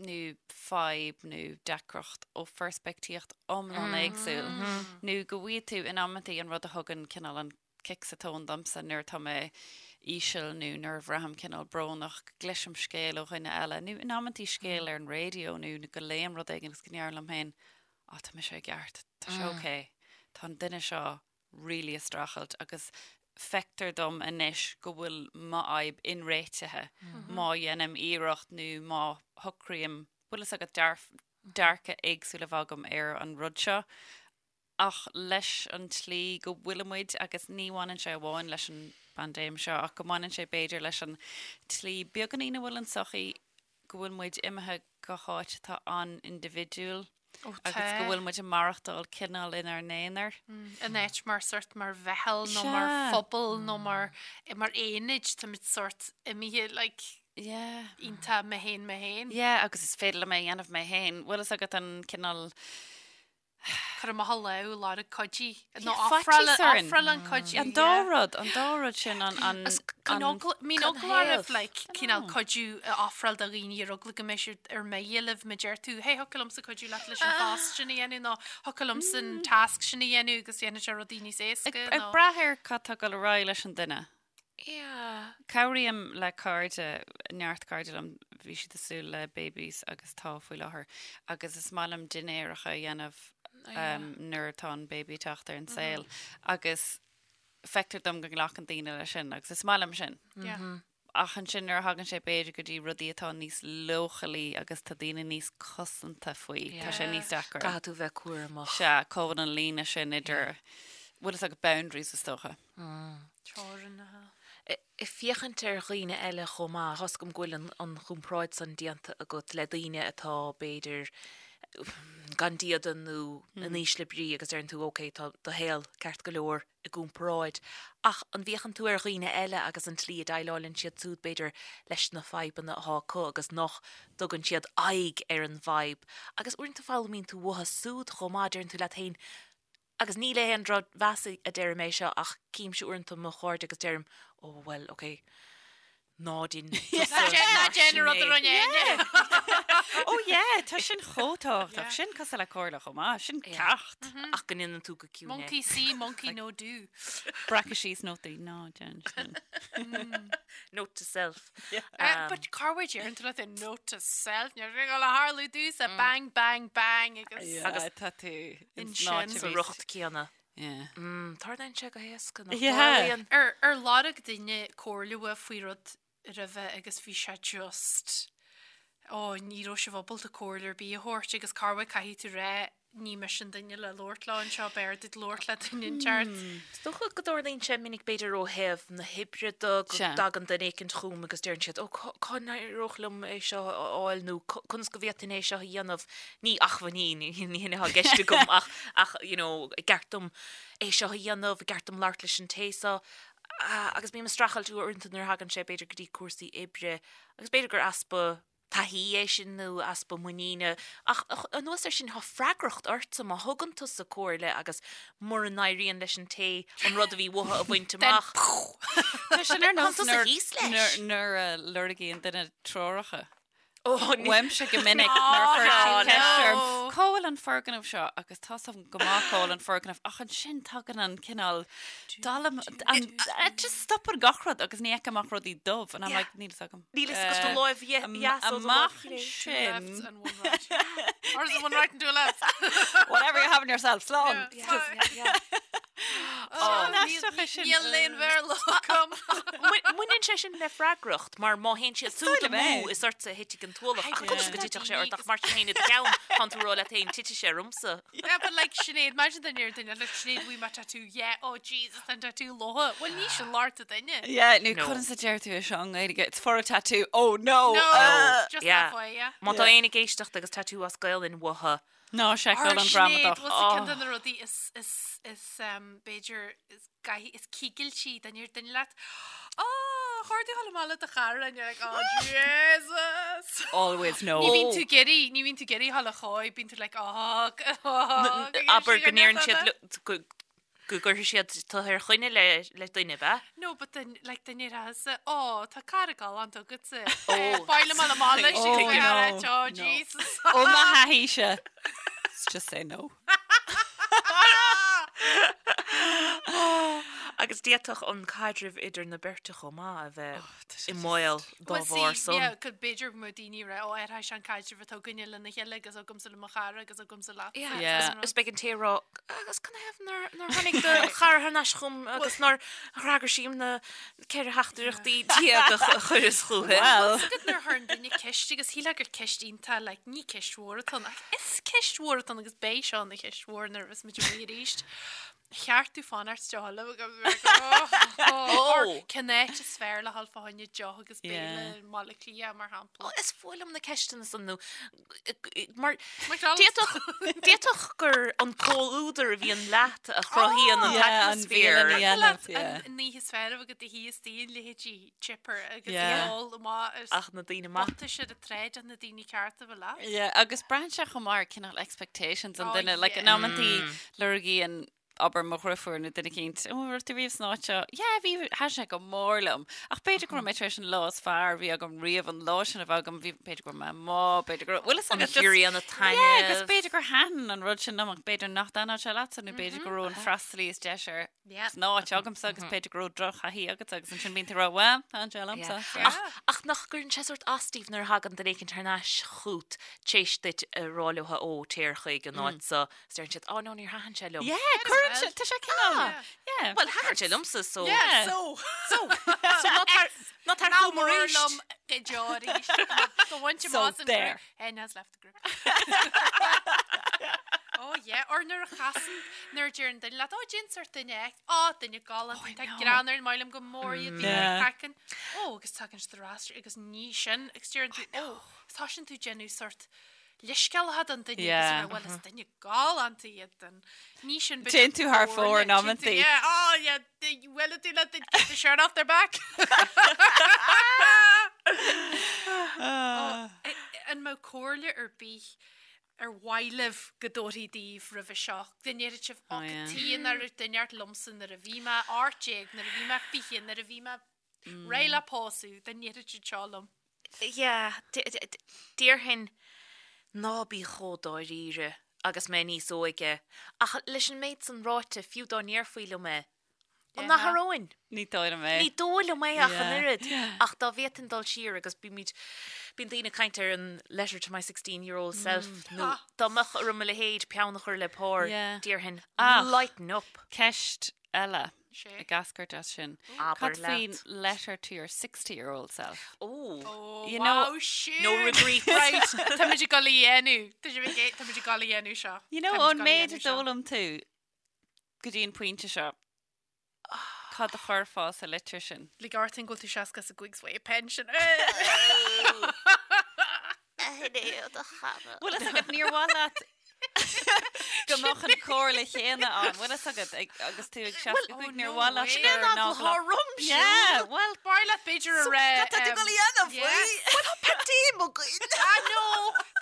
nó fadhb nó deacracht ó pheirspictíocht iomlán éagsúil nó go bhfaighidh tú in amantaí an rud a thugann cineál an cic sa tóin domsa nuair atá mé íseal nó nuair a bhraithim cineál brónach, go gcloisim scéal ó dhuine eile nó in amantaí scéal ar an raidió nó go léim rud éigin agus go ndeirim liom féin, á tá mise i gceart, tá sé ok, tá an duine seo really ag streachailt agus feictear dom anois go bhfuil m'fhadhb inréitithe má dhéanaim iarracht nó má shocraím, bhfuil fhios agat, dearcadh éagsúil a bheith agam ar an rud seo. Ach leis an tslí go bhfuilimid, agus ní bhaineann sé amháin leis an bpaindéim seo ach go mbaineann sé b'fhéidir leis an tslí beagáinín a bhfuil an tsochaí, go bhfuil muid imithe go háit atá an-indibhidiúil agus go bhfuil muid ag maireachtáil cineál inár n-aonar. In áit mar sort mar mheitheal nó mar phobal nó mar mar aonaid táimid sort imithe like Yeah. iontach mé féin mé féin. Yeah, agus is féidir liom é a dhéanamh mé féin. Bhfuil fhios agat an cineál Cur amach a lámh, lorg cuidiú. Nó ofráil ofráil an cuidiú. An dá rud, an dá rud sin an an Bíonn eagla oraibh like cineál cuidiú a ofráil do dhaoine ar eagla go mbeidh siad ar mire libh má deir tú hey thiocfadh liomsa cuidiú leat leis an phost sin a dhéanamh nó thiocfadh liomsa an tasc sin a dhéanamh agus dhéanfaidh sé rudaí níos éasca Ag brath ar cad tá ag dul ar aghaidh leis an duine. Yeah. Cabhraím le cairde, neart cairde liom, bhí siad ag súil le babies agus tá faoi láthair, agus is maith liom dinnéaracha a dhéanamh nuair atá an baby ag teacht ar an saol agus feictear dom go nglacann daoine leis sin agus is maith liom sin. Yeah. Ach ansin nuair a thagann sé b'fhéidir go dtí rudaí atá níos leochailí agus tá daoine níos cosanta faoi, tá sé níos deacra. Caithfidh tú bheith cúramach. Sea, cá bhfuil an líne sin idir, bhfuil fhios agat boundaries is dócha. Teorainneacha. Ag féachaint ar dhaoine eile chomh maith, tá 's agam go bhfuil an chomparáid san déanta agat le daoine atá, b'fhéidir, gan diada nó in ísle brí agus deireann tú ok, tá do shaol ceart go leor i gcomparáid. Ach an bhféachann tú ar dhaoine eile agus an tslí a dhéileálann siad siúd, b'fhéidir, leis na fadhbanna atá acu agus nach dtugann siad aghaidh ar an bhfadhb? Agus uaireanta foghlaimíonn tú uathu siúd chomh maith, deireann tú leat féin, Agus ní le haon drochmheas a deirim é seo ach címse uaireanta mo chairde agus deirim, oh well, ok, ná déan tusa Ná déan an rud a rinne Áine. Oh yeah, tá sin chomh tábhachtach. Sin cosúil le comhairle chomh maith. Sin ceacht. Ach go ndéanann tú go ciúin é. Monkey see, monkey no do. Breacadh síos nótaí, ná déan sin. Note to self. But cá bhfuil deireann tú leat é note to self, níl sé ag dul a tharlú domhsa, bang, bang, bang agus. Agus tá tú Ansin sa riocht céanna. Yeah. Tarlaíonn sé go héasca, nach Yeah. dtarlaíonn? Ar ar lorg duine comhairle uait faoi rud roimhe agus bhí sé just ó ní raibh sibh ábalta comhairle ar bith a thabhairt agus corruair caithfidh tú rá ní mise an duine le labhairt leo anseo b'fhearr duit labhairt le duine inteacht. Is dócha go dtarlaíonn sé minic b'fhéidir ó thaobh na hoibre de go Sea. dtagann duine éicint chugam agus deireann siad ó cá n-éireodh liom é seo a fháil nó conas go bhféadfainn é seo a dhéanamh. Ní acmhainní, ní hin atá i gceist agam ach ach you know an gceart dom é seo a dhéanamh, an gceart dom labhairt leis an té seo agus bím ag streachailt uaireanta nuair a thagann sé b'fhéidir go dtí cúrsaí oibre agus b'fhéidir gur easpa taithí é sin nó easpa muiníne ach anuas air sin tá freagracht ortsa má thugann tusa comhairle agus mura n-éiríonn leis an té an rud a bhí uathu a bhaint amach. Tá sin ar nós Tá tusa thíos leis. nuair a lorgaíonn duine treoracha. Uaimse go minic nuair a chuir siad ceist orm, cá bhfuil an foirgneamh seo? Agus tá 's agam go maith cá bhfuil an foirgneamh ach ansin tagann an cineál dallam, an, just stopann gach rud agus ní fheicim ach rudaí dubh and I'm like, níl 'fhios agam. Níl 'fhios agat do láimh dheas ó do láimh Amach chlé. ansin. Two lefts and one right. Or is it one right and two lefts? Whatever you're having yourself, slán. Yeah. Yeah. An-aisteach é sin. Níl aon Bhéarla agam. Baineann sé sin le freagracht, mar má théann siad súd amú, is ortsa a thitfidh an t-ualach. Ach conas go dtitfeadh sé ort ach mar sin féin i do cheann, tánn tú ag rá leat féin, titfidh sé ormsa. Yeah, but like Sinéad, imagine duine ar duine, like Sinéad, bhí mé tattoo, yeah, oh Jesus, tá an tattoo lobhtha. Well, ní sin locht an duine. Yeah, nó No. conas a deir tú é seo i nGaeilge? It's for a tattoo. Oh no! No, Uh, just yeah. that way, yeah. Má tá éinne ag éisteacht agus tattoo as Gaelainn uathu, Ná seiceáil an Sinéad, ghramadach. bhfuil sa ceann de na rudaí is, is, is, um, b'fhéidir, is gaithí, is cigiltí duine ar duine leat. Oh, chuir tú amach le do chara and you're like, oh Jesus! Always no. Ní bhíonn tú ag iarraidh, ní bhíonn tú ag iarraidh a dhul a chóir, bíonn tú like, oh, oh, abair go ndeireann siad go go gcuirfidh siad tú ar choinne le le duine, ab ea? No, but then, like, duine ar asa, oh, tá cara galánta agatsa. Oh. Fáil am amach leis Oh, oh, no, oh, no. Jesus. Ó mo thaithíse. Let's just say no. Agus d'fhéadfadh an caidreamh idir na beirte chomh maith a bheith i mbaol dá Well, bharr see, san. yeah, go b'fhéidir go mbeadh daoine ag rá, ó, athraigh sé an caidreamh atá againne lena chéile agus agamsa le mo chara agus agamsa leat. Yeah. Yeah. Is beidh an té ag rá, agus canathaobh nár nár tháinig do chara thar n-ais chugam agus nár fhreagair sí na 14 theachtaireachtaí a chuireas chuici. Well. Is agat nuair a chuireann duine ceist agus shílfeá gur ceist iontach like, ní ceist mhór atá ann ach is ceist mhór atá ann agus beidh seo ina cheist mhór nuair a bheas muid amuigh arís. Cheart tú fanacht deoch agus Oh. Cén áit is fearr le dhul fá choinne deoch agus béile Yeah. i mBaile Átha Cliath mar shampla. Is fuath liom na ceisteanna san nó mar McDonald's. d'fhéadfadh d'fhéadfadh gur an comhluadar a bhíonn leat a chruthaíonn an Yeah, an t-atmaisféar. bhialann a dhéanamh, yeah. An oíche is fearr agat do thí is daoine leithéidí chipper agus Yeah. ól amach is Ach na daoine maith. bottais ar an tsráid ach na daoine cearta a bheith leat. Yeah, agus braitheann sé chomh maith ar cineál expectations an Oh, duine. Like, in yeah. amantaí lorgaíonn abair mo dheirfiúr nó duine eicínt, ó, raibh tú riamh san áit seo? Yeah, bhí, thaitin sé go mór liom. Ach b'fhéidir go raibh mé tar éis an lá is fearr a bhí agam riamh an lá sin a bheith agam, bhí, b'fhéidir go raibh mé amuigh, b'fhéidir go raibh, bhfuil fhios An agat, just- chiorraíonn a Yeah, agus taitneamh. b'fhéidir gur thaitin an rud sin liom ach b'fhéidir nach dtaitneodh sé leatsa nó b'fhéidir go raibh an freastalaí is deise ar Yeah. san áit agamsa agus b'fhéidir go raibh drochthaithí agatsa agus ansin bíonn tú ag rá, well, thaitin sé liomsa. Yeah. Ach, ach nach gcuireann sé sórt as daoibh nuair a thagann duine éicint thar n-ais chút t'éis duit a rá leo ó téir chuig an áit so is deireann siad, oh no, níor thaitin sé liom. Yeah, cuireann sé, tá sé cineál, yeah. Well, thaitin sé liomsa, so. Yeah. So, So, so ná tar, ná tar chugam arís. liom go deo arís. Go bhain So there. N has left the group. Oh yeah, or nuair a chasann, nuair a deireann duine leat, oh déan sort duine X, oh duine galánta, tá greann ar an maith liom go mór iad, bíonn Yeah. craiceann. Oh, agus tagann siad ar ais agus ní sin, agus deireann tú, oh, tá sin tú déanamh sort leithscéal don duine agus Yeah. rá, well is duine galánta iad den. Ní sin Téann tú thar fóir in amantaí. Yeah, oh yeah, well tú let the, get the shirt off their back. Oh, an mbeadh comhairle ar bith ar mhaith libh go dtabharfaí daoibh roimhe seo? Go ndéarfadh sibh, Oh, oh, yeah. cad chuige nár dúirt liomsa nuair a bhí mé 18, nuair a bhí mé 20, nuair a bhí mé réidh le pósadh, dá ndéarfadh siad seo liom. Yeah, déarfainn ná bí chomh dáiríre agus mé níos óige, ach leis an méid san ráite, fiú dá ndéarfaí liom é, an athróinn? Ní dóigh liom é. Ní dóigh liom é ach an Yeah. oiread. Ach dá bhféadfainn dul siar agus bímid, bíonn daoine ag caint ar an letter to my 16 year old self nó dá mbeadh orm a leithéid peann a chur le pár, Yeah. déarfainn Ach. lighten up. Ceist eile Sé. ag eascairt as sin. Abair Cad faoin leat. letter to your 60 year old self? Oh. Oh, You wow, know, siúd. No regrets. Right, tá muid ag dul a dhéanamh. Tá muid ag- tá muid ag dul a dhéanamh seo. You know, Tá muid ón ag dul a méid a dhéanamh seo. d'fhoghlaim tú go dtí an pointe seo, cad a chuirfeá sa litir sin? Lig ort go bhfuil tú 65 's bhfuil pension. Bhfuil fhios agat níor mhaith leat go mbeadh an chomhairle chéanna ann. Bhfuil fhios agat ag- agus tú ag 65 níor mhaith leat way. gur ná Rom Yeah, well, B'fhearr leat b'fhéidir a rá. Cad tá tú ag dul a dhéanamh faoi? Well, tá paindéim againn. Ah, no!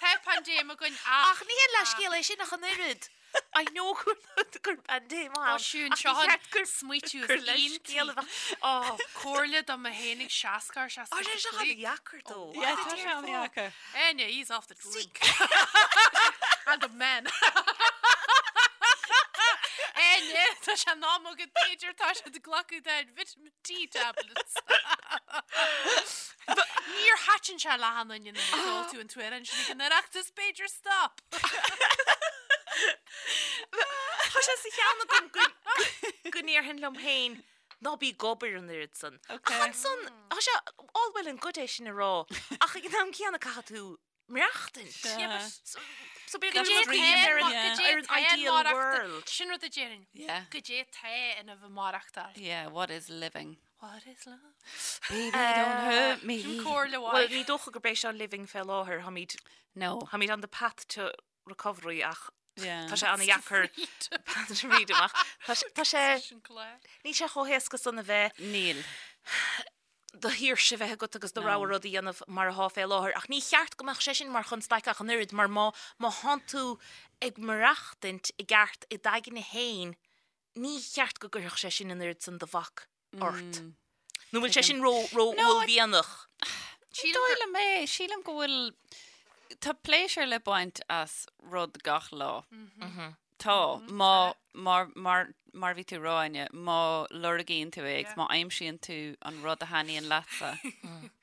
Tá paindéim againn ach. Ach ní hé leithscéal é sin ach an oiread. I know gur gur paindéim ann. Ó, siún, Ach seo ní an cheart gur smaoitiú gur is leithscéal a iontaí. bheadh. Ó, Comhairle do mé fhéin ag 60 ar Á, sé seo 65. an-dheacair dó. Yeah, tá sé an-dheacair. Enya, he's off the drink. And the men. Enya, tá sé in am agat b'fhéidir tá sé ag glacadh den vitamin D tablets. Níor thaitin sé le haon duine nuair a sheol tú an t-amhrán sin ag an Oireachtas, b'fhéidir stop. Tá sé sa cheann agam go go go ndéarfainn liom féin ná bí ag obair an oiread san. Ach ansan, tá sé all well and good é sin a rá, ach ag an am céanna caithfidh tú maireachtaint. Sea. So b'fhéidir go dream ar an ar an ideal world. Sin rud a déarfainn. Yeah. Goidé tá ina bheith maireachtáil. Yeah, what is living? What is love? Baby, don't hurt me. Sin comhairle Well, mhaith. ní dócha gurb é seo living fé láthair, táimid No. táimid on the path to recovery ach Yeah. tá sé an-dheacair path to freedom ach tá sé- tá sé Sin clár. níl sé chomh héasca san a bheith Níl. do shaoirse bheith agat agus do rogha rud a dhéanamh mar atá fé láthair ach ní cheart go mbeadh sé sin mar chonstaic ach an oiread mar má má thánn tú ag maireachtaint i gceart i d'aigne féin ní cheart go gcuirfeadh sé sin an oiread san de bhac ort. Nó bhfuil sé sin ró ró uaillmhianach? Ní dóigh liom é. Sílim go bhfuil tá pléisiúr le baint as rud gach lá. Tá, má, mar, mar, mar bhí tú a rá, Áine, má lorgaíonn tú é agus má aimsíonn tú an rud a thaitníonn leatsa,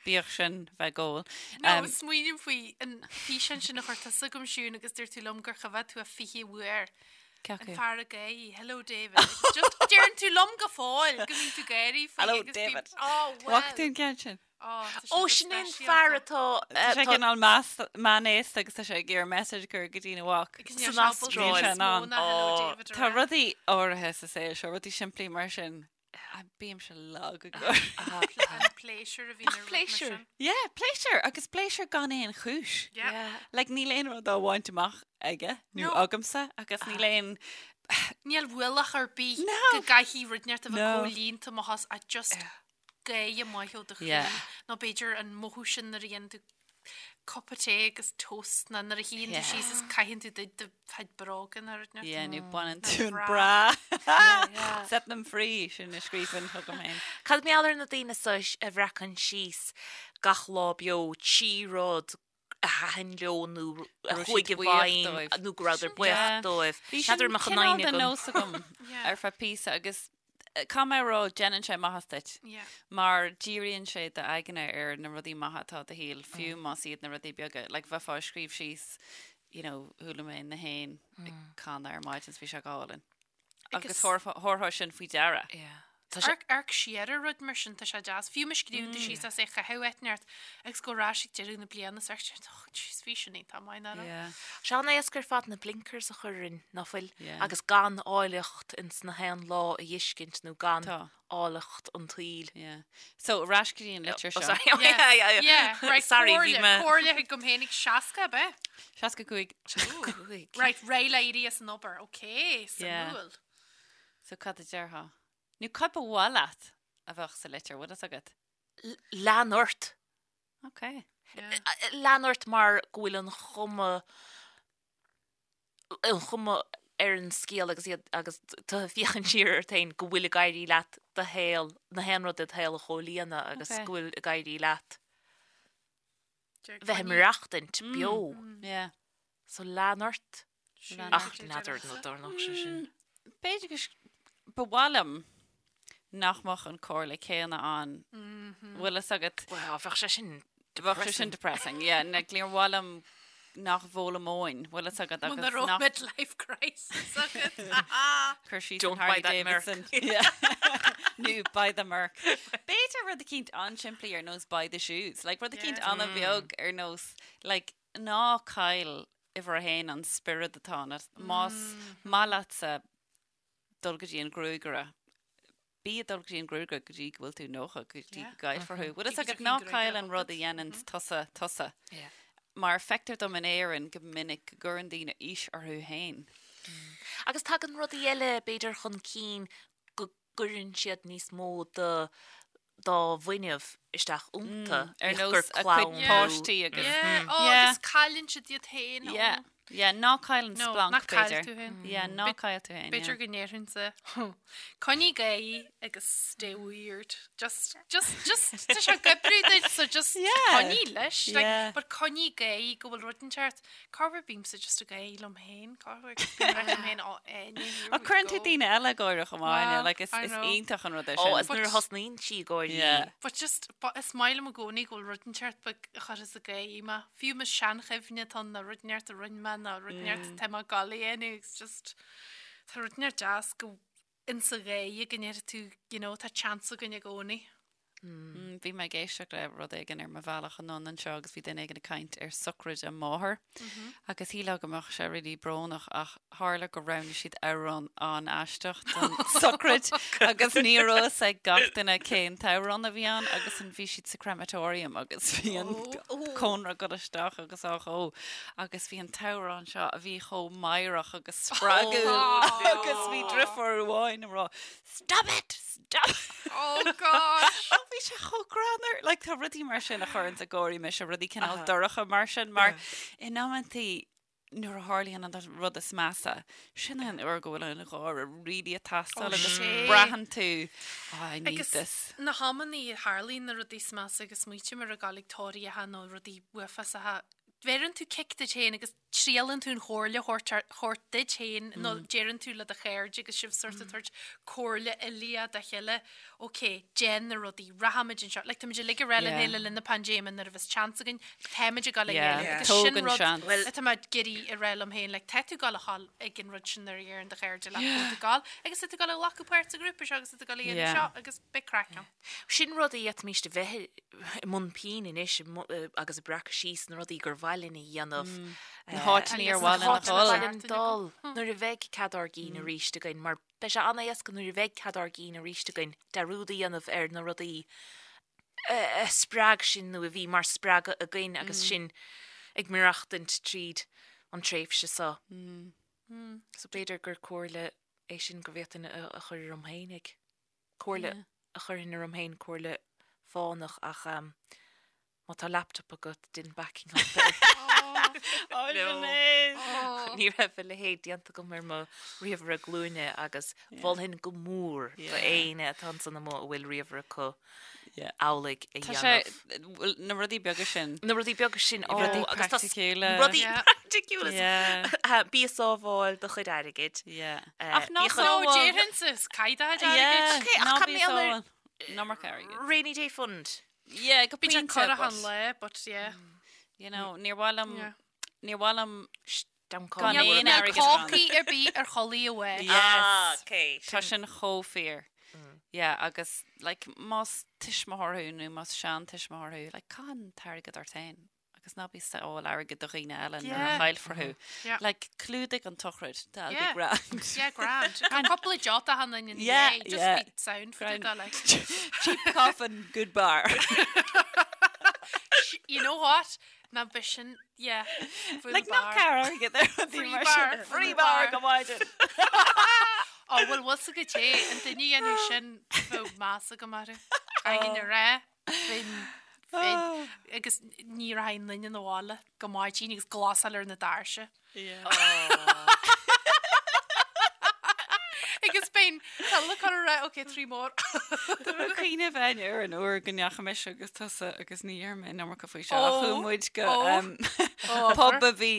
bíodh sin bheith ag ól. No, smaoiním faoi an físeán sin a chuir tusa chugam Siún agus dúirt tú liom gur choimhéad tú é 20 uair. Cé acu? An fear ag gáirí, hello David. Agus just deireann tú liom go fóill go mbíonn tú ag gáirí faoi Hello agus bím, David. oh well. Bhfaca tú an ceann sin? Ó, sin é an fear atá. Tá sé cineál meánaosta agus tá sé ag iarraidh message a chur go dtína mhac. San Astráil. Tá rudaí áirithe sa saol seo, rudaí simplí mar sin. Bímse lag ag gáire. Pléisiúr a bhíonn ar rud mar sin. Yeah, pléisiúr agus pléisiúr gan aon chúis. Like níl aon rud á bhaint amach aige nó agamsa agus níl aon. Níl ualach ar bith go gcaithfidh rud inteacht a bheith comhlíonta má thá ach just gáire maith ó do chroí nó b'fhéidir an mothú sin nuair a dhéanann tú cupa tae agus toast nó nuair a shuíonn tú síos is caitheann tú do do chuid bróga nó rud Yeah, nó baineann tú an bra. Set them free, sin a scríobhainn chugam féin. Cad mar gheall ar na daoine seo a bhreacann síos gach lá beo trí rud a thaitin leo nó a chuaigh i bhfeidhm nó go rabhadar buíoch dóibh. Bhí sin cineál de nós agam ar feadh píosa agus caithfidh mé a rá déanann sé maitheas duit mar díríonn sé d'aigne ar na rudaí maithe atá i do shaol fiú más iad na rudaí beaga. Like bheifeá ag scríobh síos you know chuala mé na héin ag canadh ar maidin is bhí sé go hálainn. Agus thabharfá sin faoi deara. Amharc amharc siar ar rud mar sin, tá sé deas. Fiú má scríobhann tú síos as é a chaitheamh áit inteacht agus go ar ais ag deireadh na bliana is amharc oh jeez bhí sin iontach maith nach raibh? Sé an-éasca ar fad na blinkers a chur orainn, ná fuil? Agus gan áilleacht ins na haon lá a dh'fheiscint nó gan áilleacht an tsaoil. Yeah. So, ar ais go dtí an litir Oh seo. sorry. Yeah, yeah, Yeah, right, Sorry, bhí comhairle, mé. comhairle chugam féinig 60 ab ea? 65. 65. Right, réidh le éirí as an obair, ok, suimiúil. So cad a déarfá? Nó cad ba mhaith leat a bheadh sa litir, bhfuil fhios agat? Lean ort. Ok. Lean ort mar go bhfuil an chuma, an chuma ar an scéal agus iad agus tú ag féachaint siar ort féin go bhfuil ag éirí leat do shaol, na haon rud i do shaol a chomhlíonadh agus go bhfuil ag éirí leat bheith ag maireachtaint beo. Yeah. So lean ort. Lean Ach ort. n'fheadar nó dtarlódh sé sin. B'fhéidir go ba mhaith liom nach mbeadh an comhairle céanna ann. Bhfuil fhios agat? Well, bheadh sé sin Bheadh sé sin depressing, yeah. Like, níor mhaith liom nach bhfoghlaimeoinn, bhfuil fhios agat agus Muna raibh nach midlife crisis agat. Cur síos Don't an buy Harley that Merc. Davidson. Yeah. Nó buy the Merc. B'fhéidir rud eicínt an-simplí ar nós buy the shoes. Like rud eicínt Yeah. an-bheag ar nós like ná caill uimhir a haon an spiorad atá ionat. Más maith leatsa dul go dtí an gruagaire, bí ag dul go dtí an gruagaire go dtí go bhfuil tú 90, go dtí go gcaillfear thú. Bhfuil fhios agat ná caill an rud a dhéanann tusa tusa. Mar feictear dom in Éirinn go minic go gcuireann daoine aois orthu féin. Agus tagann rudaí eile b'fhéidir chun cinn go gcuireann siad níos mó de dá bhfuinneamh isteach iontu, Ar bíodh gur nós a cuid clann nó. páistí agus. Yeah, oh, Yeah. agus cailleann siad iad féin. Yeah, yeah, ná caill an No, splanc, ná caill b'fhéidir. tú féin. Yeah, ná caill tú féin, B'fhéidir yeah. go ndéarfainnse, coinnigh ag gáirí agus stay weird. Just, just, just, tá sé ag oibriú duit, so just Yeah. coinnigh leis. Like, Yeah. but coinnigh ag gáirí go bhfuil rud inteacht. Corruair bímse just ag gáirí liom féin, corruair agus bím ag rá liom féin, oh, Áine, here Ach we cuireann tú go. daoine eile ag gáire chomh maith, Well, like, is, I is know. iontach an rud é Ó, sin. is nuair a thosnaíonn sí ag gáirí. Yeah. But just, but is maith liom i gcónaí go bhfuil rud inteacht beag a chuireas ag gáirí mé. Fiú más seanchuimhne atá ann nó rud inteacht a rinne mé nó rud inteacht atá mé ag gabháil a dhéanamh, it's just, tá rud inteacht deas go. Insa ghaoth go ndéarfaidh tú, you know, tá chance againn i gcónaí. Bhí mé ag éisteacht le rud éigin ar mo bhealach anonn anseo agus bhí duine éigin ag caint ar sochraid a máthar agus shílfeá go mbeadh sé really brónach ach tharla gur roghnaigh siad amhrán an-aisteach don sochraid agus ní raibh fhios ag gach duine cén t-amhrán a bhí ann agus an bhí siad sa crematorium agus bhí an cónra ag dul isteach agus á dhó agus bhí an t-amhrán seo a bhí chomh meidhreach agus spreagúil agus bhí driofúr amháin ag rá Stop it! Stop it! Oh gosh! Ach bhí sé chomh greannmhar. Like, tá rudaí mar sin a chuireanns ag gáirí mise, rudaí cineál dorcha mar sin, mar in amantaí nuair a tharlaíonn an rud is measa, sin é an uair go bhfuil an gáire really ag teastáil agus braitheann tú, oh, I need Agus this. na hamannaí a tharlaíonn na rudaí is measa agus smaoiním ar a gabháil ag tórraíocha nó rudaí uafásacha, bheireann tú cic duit féin agus triaileann tú an chomhairle a thabhairt duit féin nó deireann tú le do chairde agus sibh sort of tabhairt comhairle uilíoch dá chéile, ok, déan na rudaí, rachaimid anseo. Like, táimid uilig ag rá lena chéile le linn na paindéime nuair a bheas chance againn, táimid ag dul ag yeah. agus sin rud atá mé ag iarraidh a rá liom féin, like, tá tú ag dul a ghabháil ag an rud sin nuair a dheireann do chairde leat go bhfuil tú ag dul agus tá tú ag dul a ghlacadh páirt sa ghrúpa seo agus tá tú ag dul a dhéanamh seo agus beidh craic ann. Sin rud a d'fhéadfaimis a bheith i mbun pinn anois agus ag breacadh síos na rudaí gur mhaith linn a dhéanamh. Na háiteanna ar mhaith linn a dhul. Na háiteanna ar mhaith linn dul nuair a bheidh cead ár gcinn arís againn mar beidh sé an-éasca nuair a bheidh cead ár gcinn arís againn dearúd a dhéanamh ar na rudaí a spreag sinn nó a bhí mar spreagadh againn agus sinn ag maireachtaint tríd an tréimhse seo. So b'fhéidir gur comhairle é sin go bhféadfainn a chur orm féinig. Comhairle a chuirfinn orm féin, comhairle fánach ach má tá laptop agat, déan backing up air. Oh, Sinéad! Ní raibh a leithéid déanta agam ar mo ríomhaire glúine agus mholfainn go mór do éinne atá ansan amuigh a bhfuil ríomhaire acu amhlaidh a Tá sé, dhéanamh. bhuel, na rudaí beaga sin. Na rudaí beaga sin, ó, Rudaí agus tá praiticiúla. Rudaí Yeah. praiticiúla. Yeah. Bí ag sábháil do chuid airgid. Yeah. Eh, Ach ná bíodh an- No, sábháil. déarfainnse, is caith do chuid airgid. Yeah, Okay, ach ná cá bí mbeadh ar- sábháil an iomarca airgid. Rainy Day Fund. Yeah, go Bíonn sé pointe, corrach but, an lae, but yeah. you know, níor mhaith liom, Yeah. níor mhaith liom Gan Gan Níl aon níl airgead ann. cácaí ar bith ar chulaith amháin. Yes. Ah, okay. Tá sin chomh fíor. Yeah, agus like, más tuismitheoir thú nó más seantuismitheoir thú, like, caith an t-airgead ort féin agus ná bí ag sábháil airgead do dhaoine eile nuair a Yeah. chaillfear thú. Yeah. Like, clúdaigh an tsochraid, that'll Yeah. be grand. Yeah, grand. Tá cúpla deota han in Yeah, yeah, just yeah. be sound for Grand. the like. Cheap coffin, good bar. You know what? Ná b'shin, yeah. Full Like, bar. ná cear airgead ar rudaí Free mar bar, sin. full Free bar bar. go maidin. Ó, bhuel, bhfuil sa go té, an duine a dhéanadh sin, bheadh meas agam orthu. Caithfidh a rá, bheinn, bheinn, agus ní rachainn duine 'na bhaile go maidin agus glasáil ar na doirse. Agus bheinn tuilleadh cur a rá, ok, 3 more. Tá mé ag cuimhneamh féin ar an uair go ndeachaigh mise agus tusa agus ní dheir mé an iomarca faoi seo ach chuaigh muid go pub a bhí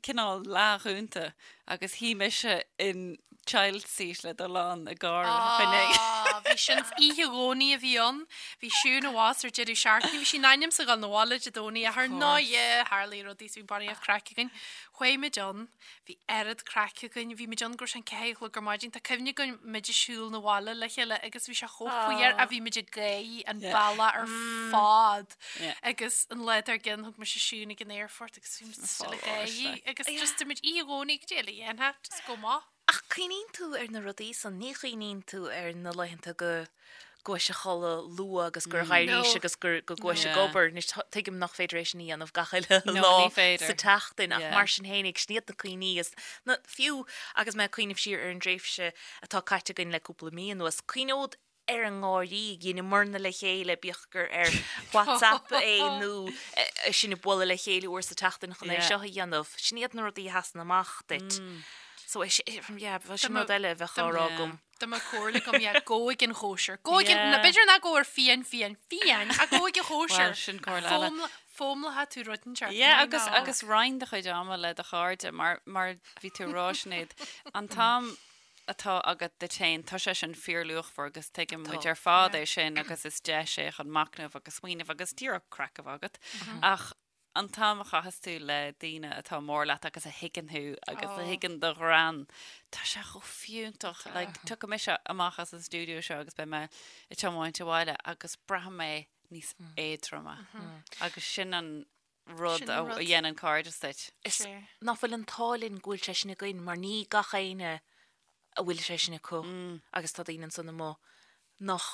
cineál leathdhúnta agus shuigh mise in child seat le do lán ag gáire Ah, bhí sin oíche Dhomhnaigh a bhí ann. Bhí Siún abhus ar deireadh seachtaine. Bhí sí in ainm 's a dhul 'na bhaile Dé Domhnaigh ach ar ndóigh tharlaigh rudaí so bhí barraíocht craic againn. Chuaigh muid ann. Bhí oiread craic againn. Bhí muid ann go raibh sé an 4 a chlog ar maidin. Tá cuimhne agam muid ag siúl 'na bhaile le chéile agus bhí sé chomh fuar a bhí muid ag gáirí an bealach ar fad. Agus an lá dár gcionn thug mise Siún ag an aerfort agus bhí muid still ag gáirí agus just muid oíche Dhomhnaigh go dtí a dhéanfá just go maith. Ach cuimhníonn tú ar na rudaí san, ní chuimhníonn tú ar na laethanta go gcuais a chodladh luath agus gur dh'éirís No. agus gur go gcuais ag Yeah. obair. Anois tuigim nach féidir é sin a dhéanamh gach uile No, lá ní féidir. sa tseachtain ach Yeah. mar sin fhéinig, sin iad na cuimhní is na, fiú agus mé ag cuimhneamh siar ar an dtréimhse atá caite againn le cúpla mí anuas, cuimhneod ar an ngáirí a dheineamarna le chéile, bíodh gur ar WhatsApp é nó sinn ag bualadh le chéile uair sa tseachtain chun é Yeah. seo a dhéanamh. Sin iad na rudaí a sheasann amach duit. So é sin, yeah, bheadh sin rud eile a bheadh á rá agam. Dá mbeadh comhairle agam, yeah, gabh ag an chóisir. Gabh ag an, Yeah. na b'fhéidir ná gabh ar fiáin, fiáin, fiáin, ach gabh ag an chóisir. Well, sin comhairle eile. Foghlaim- Foghlaimeoidh tú rud inteacht. Yeah, Why agus not? agus roinn do chuid ama le do chairde mar mar bhí tú ag rá Sinéad, an t-am atá agat duit féin, tá sé sin fíorluachmhar agus tuigeann muid Tá. ar fad é sin agus is deis é chun machnamh agus smaoineamh agus díreach craic a bheith agat. Ach. An t-am a chaitheas tú le daoine atá mór leat agus a thuigeann thú agus a thuigeann do ghreann, tá sé chomh fiúntach. Like, tiocfaidh mise amach as an stiúideo seo agus beidh mé ag tiomáint abhaile agus braithfidh mé níos éadroime. Agus sin an rud a dhéanann cairdeas duit. Is nach bhfuil an t-ádh linn go bhfuil sé sin againn mar ní gach éinne a bhfuil sé sin acu agus tá daoine ansan amuigh nach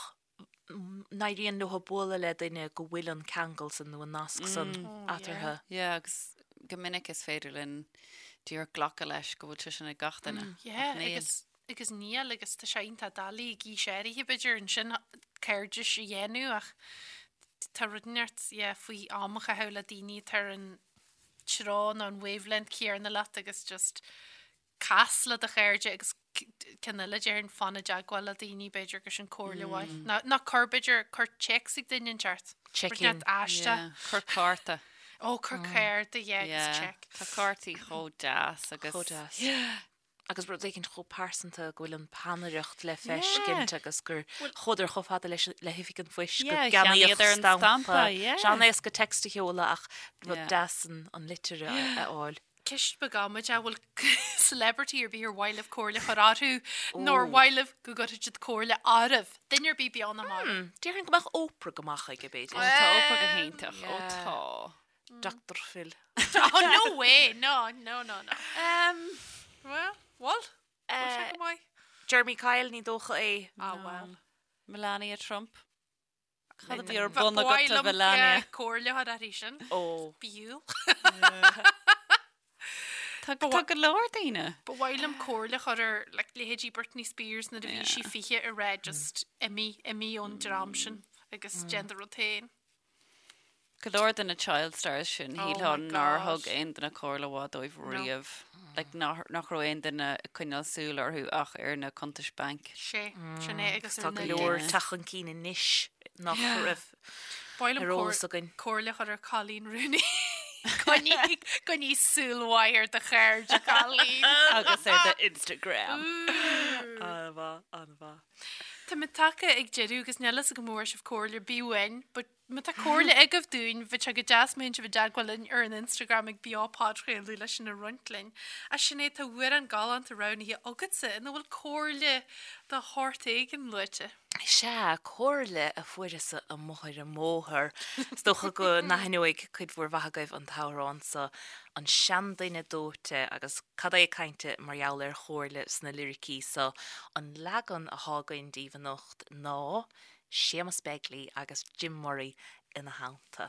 n-éiríonn leo bualadh le duine go bhfuil an ceangal san nó an nasc san eatarthu. Yeah, agus go minic is féidir linn díreach glacadh leis go bhfuil sé sin ag gach duine. Yeah, agus agus níl agus tá sé iontach doiligh ag aois áirithe b'fhéidir ansin cairdis a dhéanamh ach tá rud inteacht yeah, faoi am a chaitheamh le daoine atá ar an treo nó an wavelength céanna leat agus just cas le do chairde agus ceann eile déarfainn fan i dteagmháil le daoine b'fhéidir gur sin comhairle mhaith. Ná ná cuir b'fhéidir cuir téacs ag duine inteacht. Check in. Aisteach. Yeah, cuir cárta. Ó cuir cárta yeah agus Yeah. check. Tá cártaí chomh deas agus. Chomh deas. Agus rud éicint chomh pearsanta go bhfuil an peannaireacht le feiscint agus gur chuadar chomh fada leis le hoifig an phoist go Yeah, gceannaíodh cheannaíodar an stampa. stampa, yeah. Sé an-éasca text a sheoladh ach rud Yeah. deas an an litir a a fháil. Ceist beag amaideach, an bhfuil celebrity ar bith ar mhaith libh comhairle a chur orthu nó ar mhaith libh go gcuirfidh siad comhairle oraibh? Duine ar bith beo nó marbh? Déarfainn go mbeadh Oprah go maith chuige, b'fhéidir. Ó tá Oprah go hiontach, ó tá. Dr Phil. Oh no way, no, no, no, no. Well, bhfuil? Bhfuil sé go maith? Jeremy Kyle, ní dócha é. Ah well. Melania Trump. Cad a bhí ar bun agat a Mhelania? Comhairle a chur uirthi sin. Ó. B'fhiú. Tá tá go leor daoine. Ba mhaith liom comhairle a chur ar like, leithéidí Britney Spears nuair a bhí sí 20 a rá just imigh, imigh ón dream sin agus déan do rud féin. Go leor de na child stars sin, Oh shílfeá my nár God. thug aon duine comhairle mhaith dóibh riamh. Like, nach nach raibh aon duine ag coinneáil súil orthu ach ar na cuntais bainc. Sé, sin é agus Tá ar go na leor Yeah. teacht chun cinn anois nach raibh Ba mhaith liom ar eolas againn. comhairle a chur ar Coleen Rooney. Coinnigh coinnigh súil mhaith ar do chairde, Colleen. Agus ar do Instagram. An-mhaith, an-mhaith. Tá muid tagtha ag deireadh agus níl fhios agam an bhfuair sibh comhairle ar bith uainn, but Má tá comhairle agaibh dúinn, bheadh sé go deas má théann sibh i dteagmháil linn ar an Instagram ag Beo Podchraoladh leis sin a roinnt linn. A Sinéad, tá amhrán galánta roghnaithe agatsa ina bhfuil comhairle de shórt éigin luaite. Sea, comhairle a fuaireas-sa amuigh ar an mbóthar. Is dócha go n-aithneoidh cuid mhór mhaith agaibh an t-amhrán so, An Seanduine Dóite, agus cad é cainte mar gheall ar chomhairle sna liricí so. An leagan athá againn daoibh anocht ná Séamus Begley agus Jim Murray ina theannta.